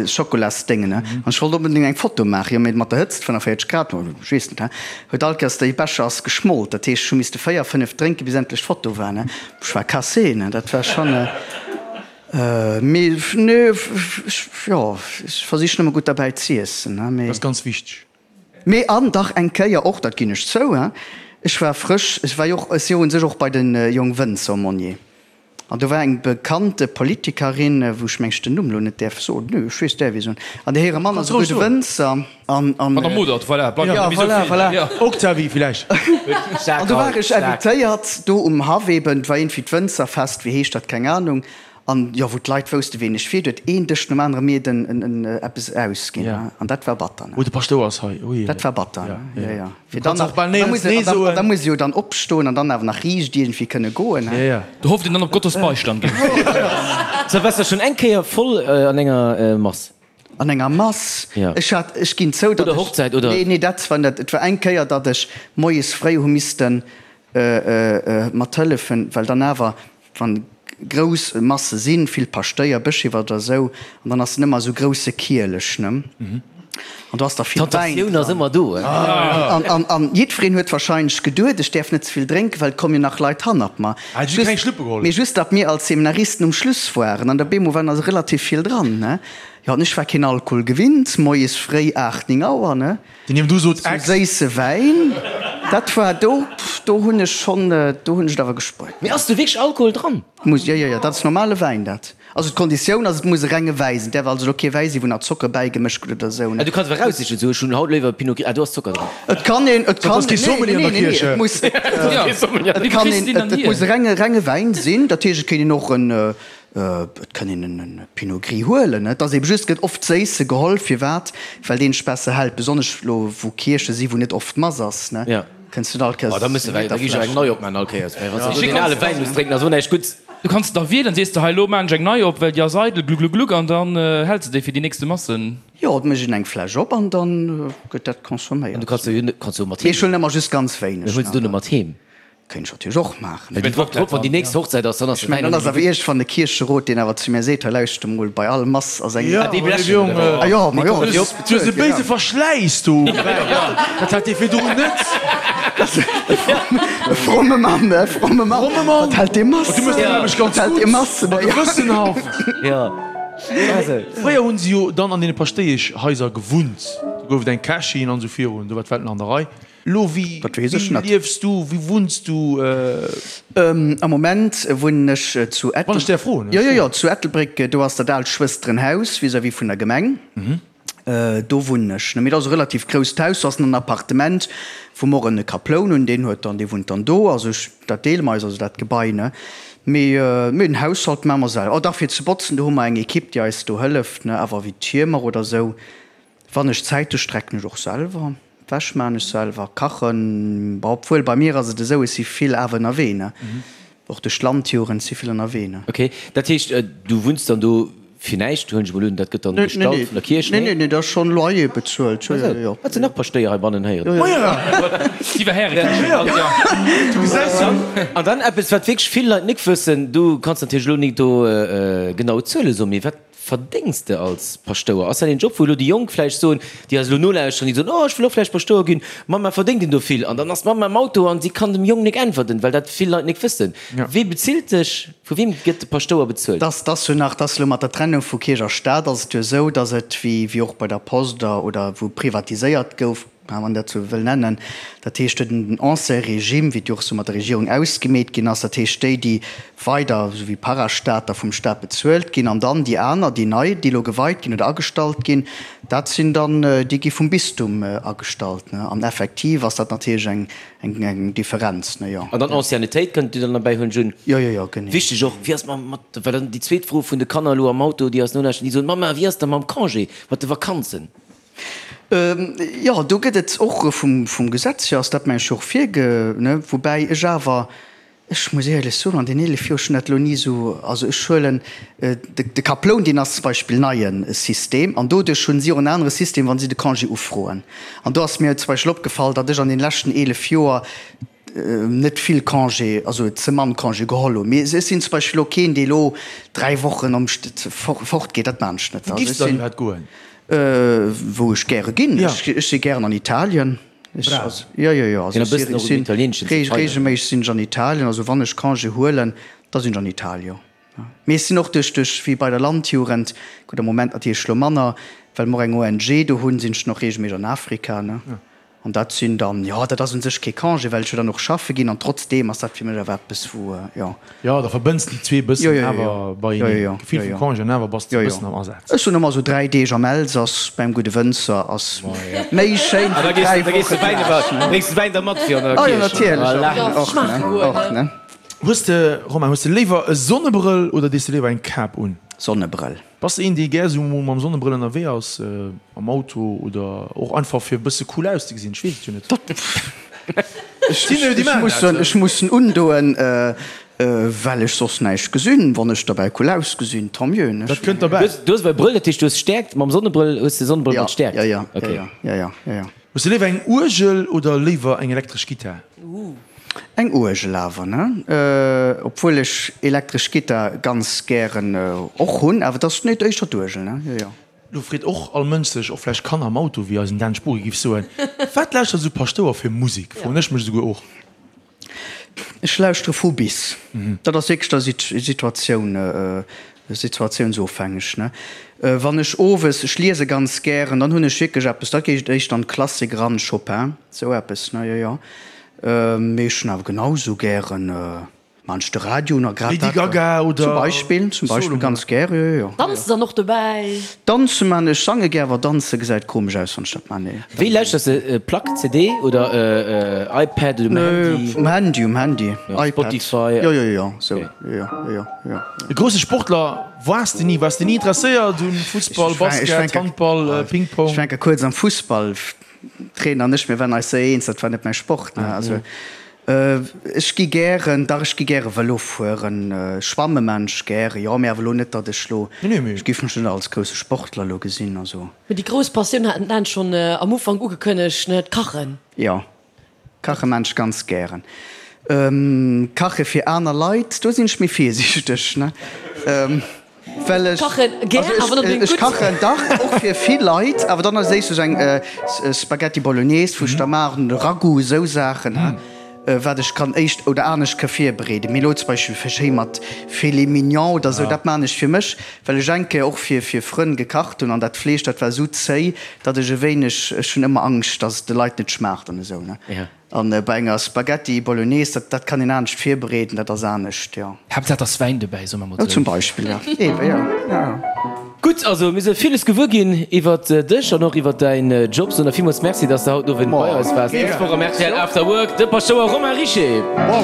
Schokolasdéngen, ne. An ech wollt onbedéngt eng Foto maachen, jo, mee mat der Hëtzt, 45 Grad, ech weess net, he, huet all Kéiers déi Becher ass geschmolt. Dat heescht, ech hu misste 4, 5 drénken, bis endlech d'Foto war, ne. Ech war cassé, ne, dat war schonn. Mee, nee, ech, jo, ech versichen ëmmer gutt derbäi z'iessen, ne, mee. Dat ass ganz wichteg. Mee an dach eng Kéier och, dat ginn ech zou, hein, ech war frësch, ech war jo och, ech si jo un sech och bei de Jongwënzer Monnier, an do war eng bekannte Politikerin, wou ech meng ech den Numm elo net däerf soen, nö, ech weess, däerf ee soen, an där hire Mann ass e gudde Wënzer, an, an. Madame Modert, voilà, bleift net méi esou vill, voilà. Jo. Octavie villäicht. An do war ech invitéiert, do um Haff eben, et war iergendwéi d'Wënzerfest, wéi heescht dat, keng Ahnung, An jo, wou d'Leit woussten, ween ech wier, huet een Dësch nom anere mir den en eppes ausginn. An dat war batter, ne? Oh, de Paschtouer ass hei, ui. Dat war batter, ne? Jo, jo. Fir dann nach, da muss een, an da muss ee jo dann opstoen an dann awer nach riicht iergendwéi kënne goen, he? Jo, jo. Do hofft een dann op Gottes Beistand, gell? So, waars de schonn eng Kéier voll an enger Mass? An enger Mass? Jo. Ech hat, ech ginn zou, datt Oder Hochzäit, oder? Nee, nee, dat war net. Et war eng Kéier, datt ech moies fréi hu missten mathëllefen, well dann awer, Wann grouss Masse sinn, vill Paschtéier, Bëschewer oder esou, an dann ass en ëmmer esou grousse Kielech, ne? An do ass da vill Wäin D'Tentatioun ass ëmmer do, he? An, an, an jiddwereen huet wahrscheinlech geduet, ech däerf net ze vill drénken, well et komme jo nach Leit hannert mer. Ah, du hues keng Schluppe geholl? Mee just, datt mir als Seminaristen um Schluss waren, an der bemol waren also relativ vill dran, ne? Jo, an ech war keen Alkohol gewinnt, moies fréi 8, 9 Auer, ne? Deen hiem du sot, Ex. Sou séisse Wäin, dat war do, do hunn ech schonn, do hunn ech et awer gespuert. Mee ass do wierklech Alkohol dran? Muss, jo, jo, jo, dat ass normale Wäin dat. Also d'Konditioun ass, et muss e renge Wäi sinn, et däerf also elo kee Wäi sinn, wou nach Zocker bäigemëscht gëtt oder esou, ne. Ah, du kanns awer eraussichen, sou, ech hunn haut léiwer Pinot Gris, ah, do ass Zocker dran. Et kann een, et kann, ass kee Sommelier an der nee, nee, nee, Kierch. et muss, et kann een, et muss e renge, renge Wäin sinn, dat heescht, et kéint een och en, Et kann een en Pinot Gris huelen, et ass eben just, gëtt oft séisse geholl. Firwat? Well deen sech besser hält, besonnesch lo wou Kierche si wou net oft Mass ass, ne? Kënns du net all Kéiers Oh, da muss de da gi ech eng nei opmaachen all Kéiers, well wann s de do deen ale Wäin muss drénken, ass och näischt Gutts. Du kanns da wielen, sees de hei lo maan ech eng nei op, well déi ass eidel, gluggluggluck, an dann häls de déi fir déi nächste Massen. Jo, et mécht een eng Fläsch op an dann gëtt dat consomméiert. An du kanns jo kanns jo mat heem. Mee ech huelen ëmmer just ganz wéineg. Mee huels du net mat heem? Kéint ech natierlech och maachen. Well déi Woch drop, wann déi nächst Hochzäit ass, dann ass Ech mengen, dann ass awer iergendwann de Kiercherot, deen awer zu mir seet, hei lauschter mol, bei all Mass ass eng. Ja, déi blechen oder wéi? Ah jo, ma jo, Du hues e béise Verschläiss do um Wäin. Dat hat dee virdrun net. E fromme Mann, e fromme Mann. Fromme Mann. Wat hält dee Mass? Du méchs deng Aarbecht ganz Wat hält dee gutt. Mass? A gewëssenhaft. Ja. Also. Fréier hunn se jo dann an deene Paschtéieschhaiser gewunnt. Do gouf et eng Kächin an esou virun. Do war d'Welt nach an der Rei. Lo, wéi Dat weess ech net. liefs du, wéi wunns du? Am Moment wunnen ech zu Wann ech däerf froen. Jo, jo, jo, zu Ettelbréck. Do ass dat aalt Schwësterenhaus vis-à-vis vun der Gemeng. Do wunnen ech. Mee dat ass e relativ grousst Haus. Do ass nach en Appartement, wou mer och en Kaploun hunn. Deen huet dann, dee wunnt dann do. Also ech, dat deele mer eis, also dat Gebai, ne. Mee, mee den Haushalt maache mer selwer. Oh dach, fir ze botzen, do hu mer eng Ekipp, déi eis do hëlleft, ne. Awer wéi d'Hiemer oder esou, wann ech Zäit hu, strecken ech och selwer. D'Wäsch maan ech selwer, kachen, bon obwuel bei mir ass et esou, ech si vill awer ënnerwee ne, och duerch d'Landjugend si vill ënnerwee ne. Ok, dat heescht du wunns dann do fir näischt, huelen ech mol un, dat gëtt dann gestallt vun der Kierch, nee? Nee, nee, dat ass schonn Loyer bezuelt, jo, jo, jo. Wat sinn nach Paschtéier heibannen héieren? Déi war Härekierch, jo. Du gesäis jo. An dann eppes wat wierklech vill Leit nik wëssen, du kanns natierlech elo nik do genau Zuele soen, mee wat. Verdéngs de als Paschtouer? Ass dat een Job, wou elo déi Jonk vläicht soen, déi eis elo nolauschteren, déi soen, oh ech wëll och vläicht Paschtouer ginn, Mamma verdéngt een do vill? An dann ass d'Mamma am Auto an si kann dem Jong nik äntwerten, well dat vill Leit nik wëssen. Wee bezilt dech? Vu weem gëtt de Paschtouer bezuelt? Dass dass jo nach, dass elo mat der Trennung vu Kierch a Staat ass et jo esou, dass et wéi wéi och bei der Post oder wou privatiséiert gouf, wann een dat sou wëll nennen, dat heescht den ancien Régime, wéi et jo och sou mat der Regierung ausgemeet ginn ass, dat heescht déi, déi weider sou wéi Parastater vum Staat bezuelt ginn, an dann déi aner, déi nei, déi elo geweit ginn oder agestallt ginn, dat sinn dann, déi gi vum Bistum agestallt. An effektiv ass dat natierlech eng, eng Differenz, ne, jo. An dann Anciennetéit kënnt Dir dann derbäi hunn, Jun. Jo, jo, jo, genee. Wichteg och, wéi ass mam, mat, well dann déi zweet Fro vun de Kanner elo am Auto, déi eis nolauschteren, déi soen, Mamma, wéi ass da mam Congé, mat de Vakanzen? Jo, do gëtt et och vum Gesetz hier ass dat mengen ech och virge, ne, woubäi ech awer, ech muss éierlech soen, an den 11 Joer, ech hunn dat elo ni esou, also ech huelen de Kaploun, deen ass zum Beispill neie System an doduerch hunn si och en anere System, wa si de Congé ufroen. An do ass mir zum Beispill opgefall, datt ech an den leschten 11 Joer net vill Congé, also ze mann Congé geholl hunn. Mee ech sinn zum Beispill elo keen, dee elo 3 Wochen am fort geet, dat maan ech net. Wou giffs de dann iwwerhaapt goen? Wou ech gäre ginn? Ech si gären an Italien. Brav. Jo, jo, jo. Also ech sinn regelméisseg sinn ech an Italien. Also wann ech Congé huelen, da sinn ech an Italien, jo. Mee ech sinn och duerch, duerch wéi bei der Landjugend, gutt am Moment natierlech elo manner, well mer och eng ONG do hunn, sinn ech dann och regelméisseg an Afrika, ne. An dat sinn dann, jo, dat ass u sech kee Congé, well ech jo dann och schaffe ginn an trotzdeem ass dat fir mech awer eppes, wou, jo. Jo, da verbënns de déi zwee e bëssen awer beieneen. D'Gefill vum Congé an awer bass de e bëssen am Asaz. Ech soen ëmmer esou 3 Deeg am Elsass beim gudde Wënzer ass méi schéin wéi 3 Woche plage. Bréngs de Wäin da mat fir an der Kierch? Oh jo, natierlech, och, och, ne. Hues de, Romain, hues de léiwer e Sonnebrëll oder dees de léiwer eng Kap un? Sonnebrëll. Bass de een dee gär sou mol mam Sonnebrëll ënnerwee ass, am Auto oder och einfach fir e bësse cool auszegesinn? Ech weess et jo net. Ech muss en undoen, well ech soss näischt gesinn. Wann ech derbäi cool ausgesinn, tant mieux, ne? Dat kënnt derbäi. Du hues awer e Brëll, dat heescht du hues Stäerkt, mam Sonnebrëll hues de Sonnebrëll mat Stäerkt? Jo, jo, jo, jo, jo, jo. Hues de léiwer eng Uergel oder léiwer eng elektresch Gittar? Eng Uergel awer, ne? Obwuel ech elektresch Gittar ganz gären och hunn, awer et ass net éischter d'Uergel, ne? Jo, jo. Lo freet och all Mënsch sech, och vläicht Kanner am Auto, wéi eisen Dan Spuri giff soen, Wat lauschtert esou Paschtouer fir Musek? Froen ech mech esouguer och. Ech lauschtere vu bis. Dat ass wierklech der Situatioun, situatiounsofhängeg, ne? Wann ech owes, ech liese ganz gären, dann hunn ech wierklech eppes, da geet et éischter an d'Klassik eran, Chopin, esou eppes, ne? Jo, jo. Mee ech hunn awer genau sou gären man ech de Radio un a grad Lady Gaga oder zum Beispill, zum Beispill ganz gär, jo jo jo. Danze dann och dobäi? Danze man ech, sange gär, awer danze gesäit komesch aus wann ech dat man, nee. Wéi lauschters de, Plack, CD oder iPad oder um Handy? Um Handy, um Handy, iPad, Spotify, jo jo jo sou, jo jo jo jo. E grousse Sportler waars de ni? Waars de ni interesséiert un Fussball, Basket, Handball, Ping-Pong? Ech war eng Kéier kuerz am Fussball. Trainer an ech, mir waren eis séier eens, dat war net mäi Sport. Ne? Also, ech gi gären, dach ech gi gäre Vëlo fueren, schwamme man ech gäre, jo, mee awer elo net, datt ech lo, ech géif mech net als grousse Sportler elo gesinn, also. Mee déi grouss Passioun hat den Dan schonn am Ufank ugekënnegt, ne, d'Kachen. Jo, kache man ech ganz gären. Kache fir aner Leit, do sinn ech méi virsiichteg, ne. Well ech, also ech, ech kachen dach och fir vill Leit, awer dann als éischt eng Spaghetti Bolognese wou ech da maachen, oder Ragout, esou Saachen, wat ech kann éischt oder anescht ka virbereeden. Mee elo zum Beispill fir schéi mat Filet mignon oder esou, dat maan ech fir mech, well ech eng Kéier och fir fir Frënn gekacht hunn an dat Fleesch, dat war esou zéi, datt ech e wéineg, ech hunn ëmmer Angscht, datt et de Leit net schmaacht an esou, ne. An bei enger Spaghetti Bolognese, dat, dat kann een anescht virbereeden, dat ass anescht, jo. Haaptsaach et ass Wäin dobäi, soe mer mol sou. Zum Beispill, jo. Eebe, jo, jo. Gutt, also mir si villes gewuer ginn iwwert dech an och iwwert däin Job. Soen der villmools Merci, dass de haut den Owend bei eis waars. Nächst Woch am rtl After Work de Paschtouer Romain Richer. Wow.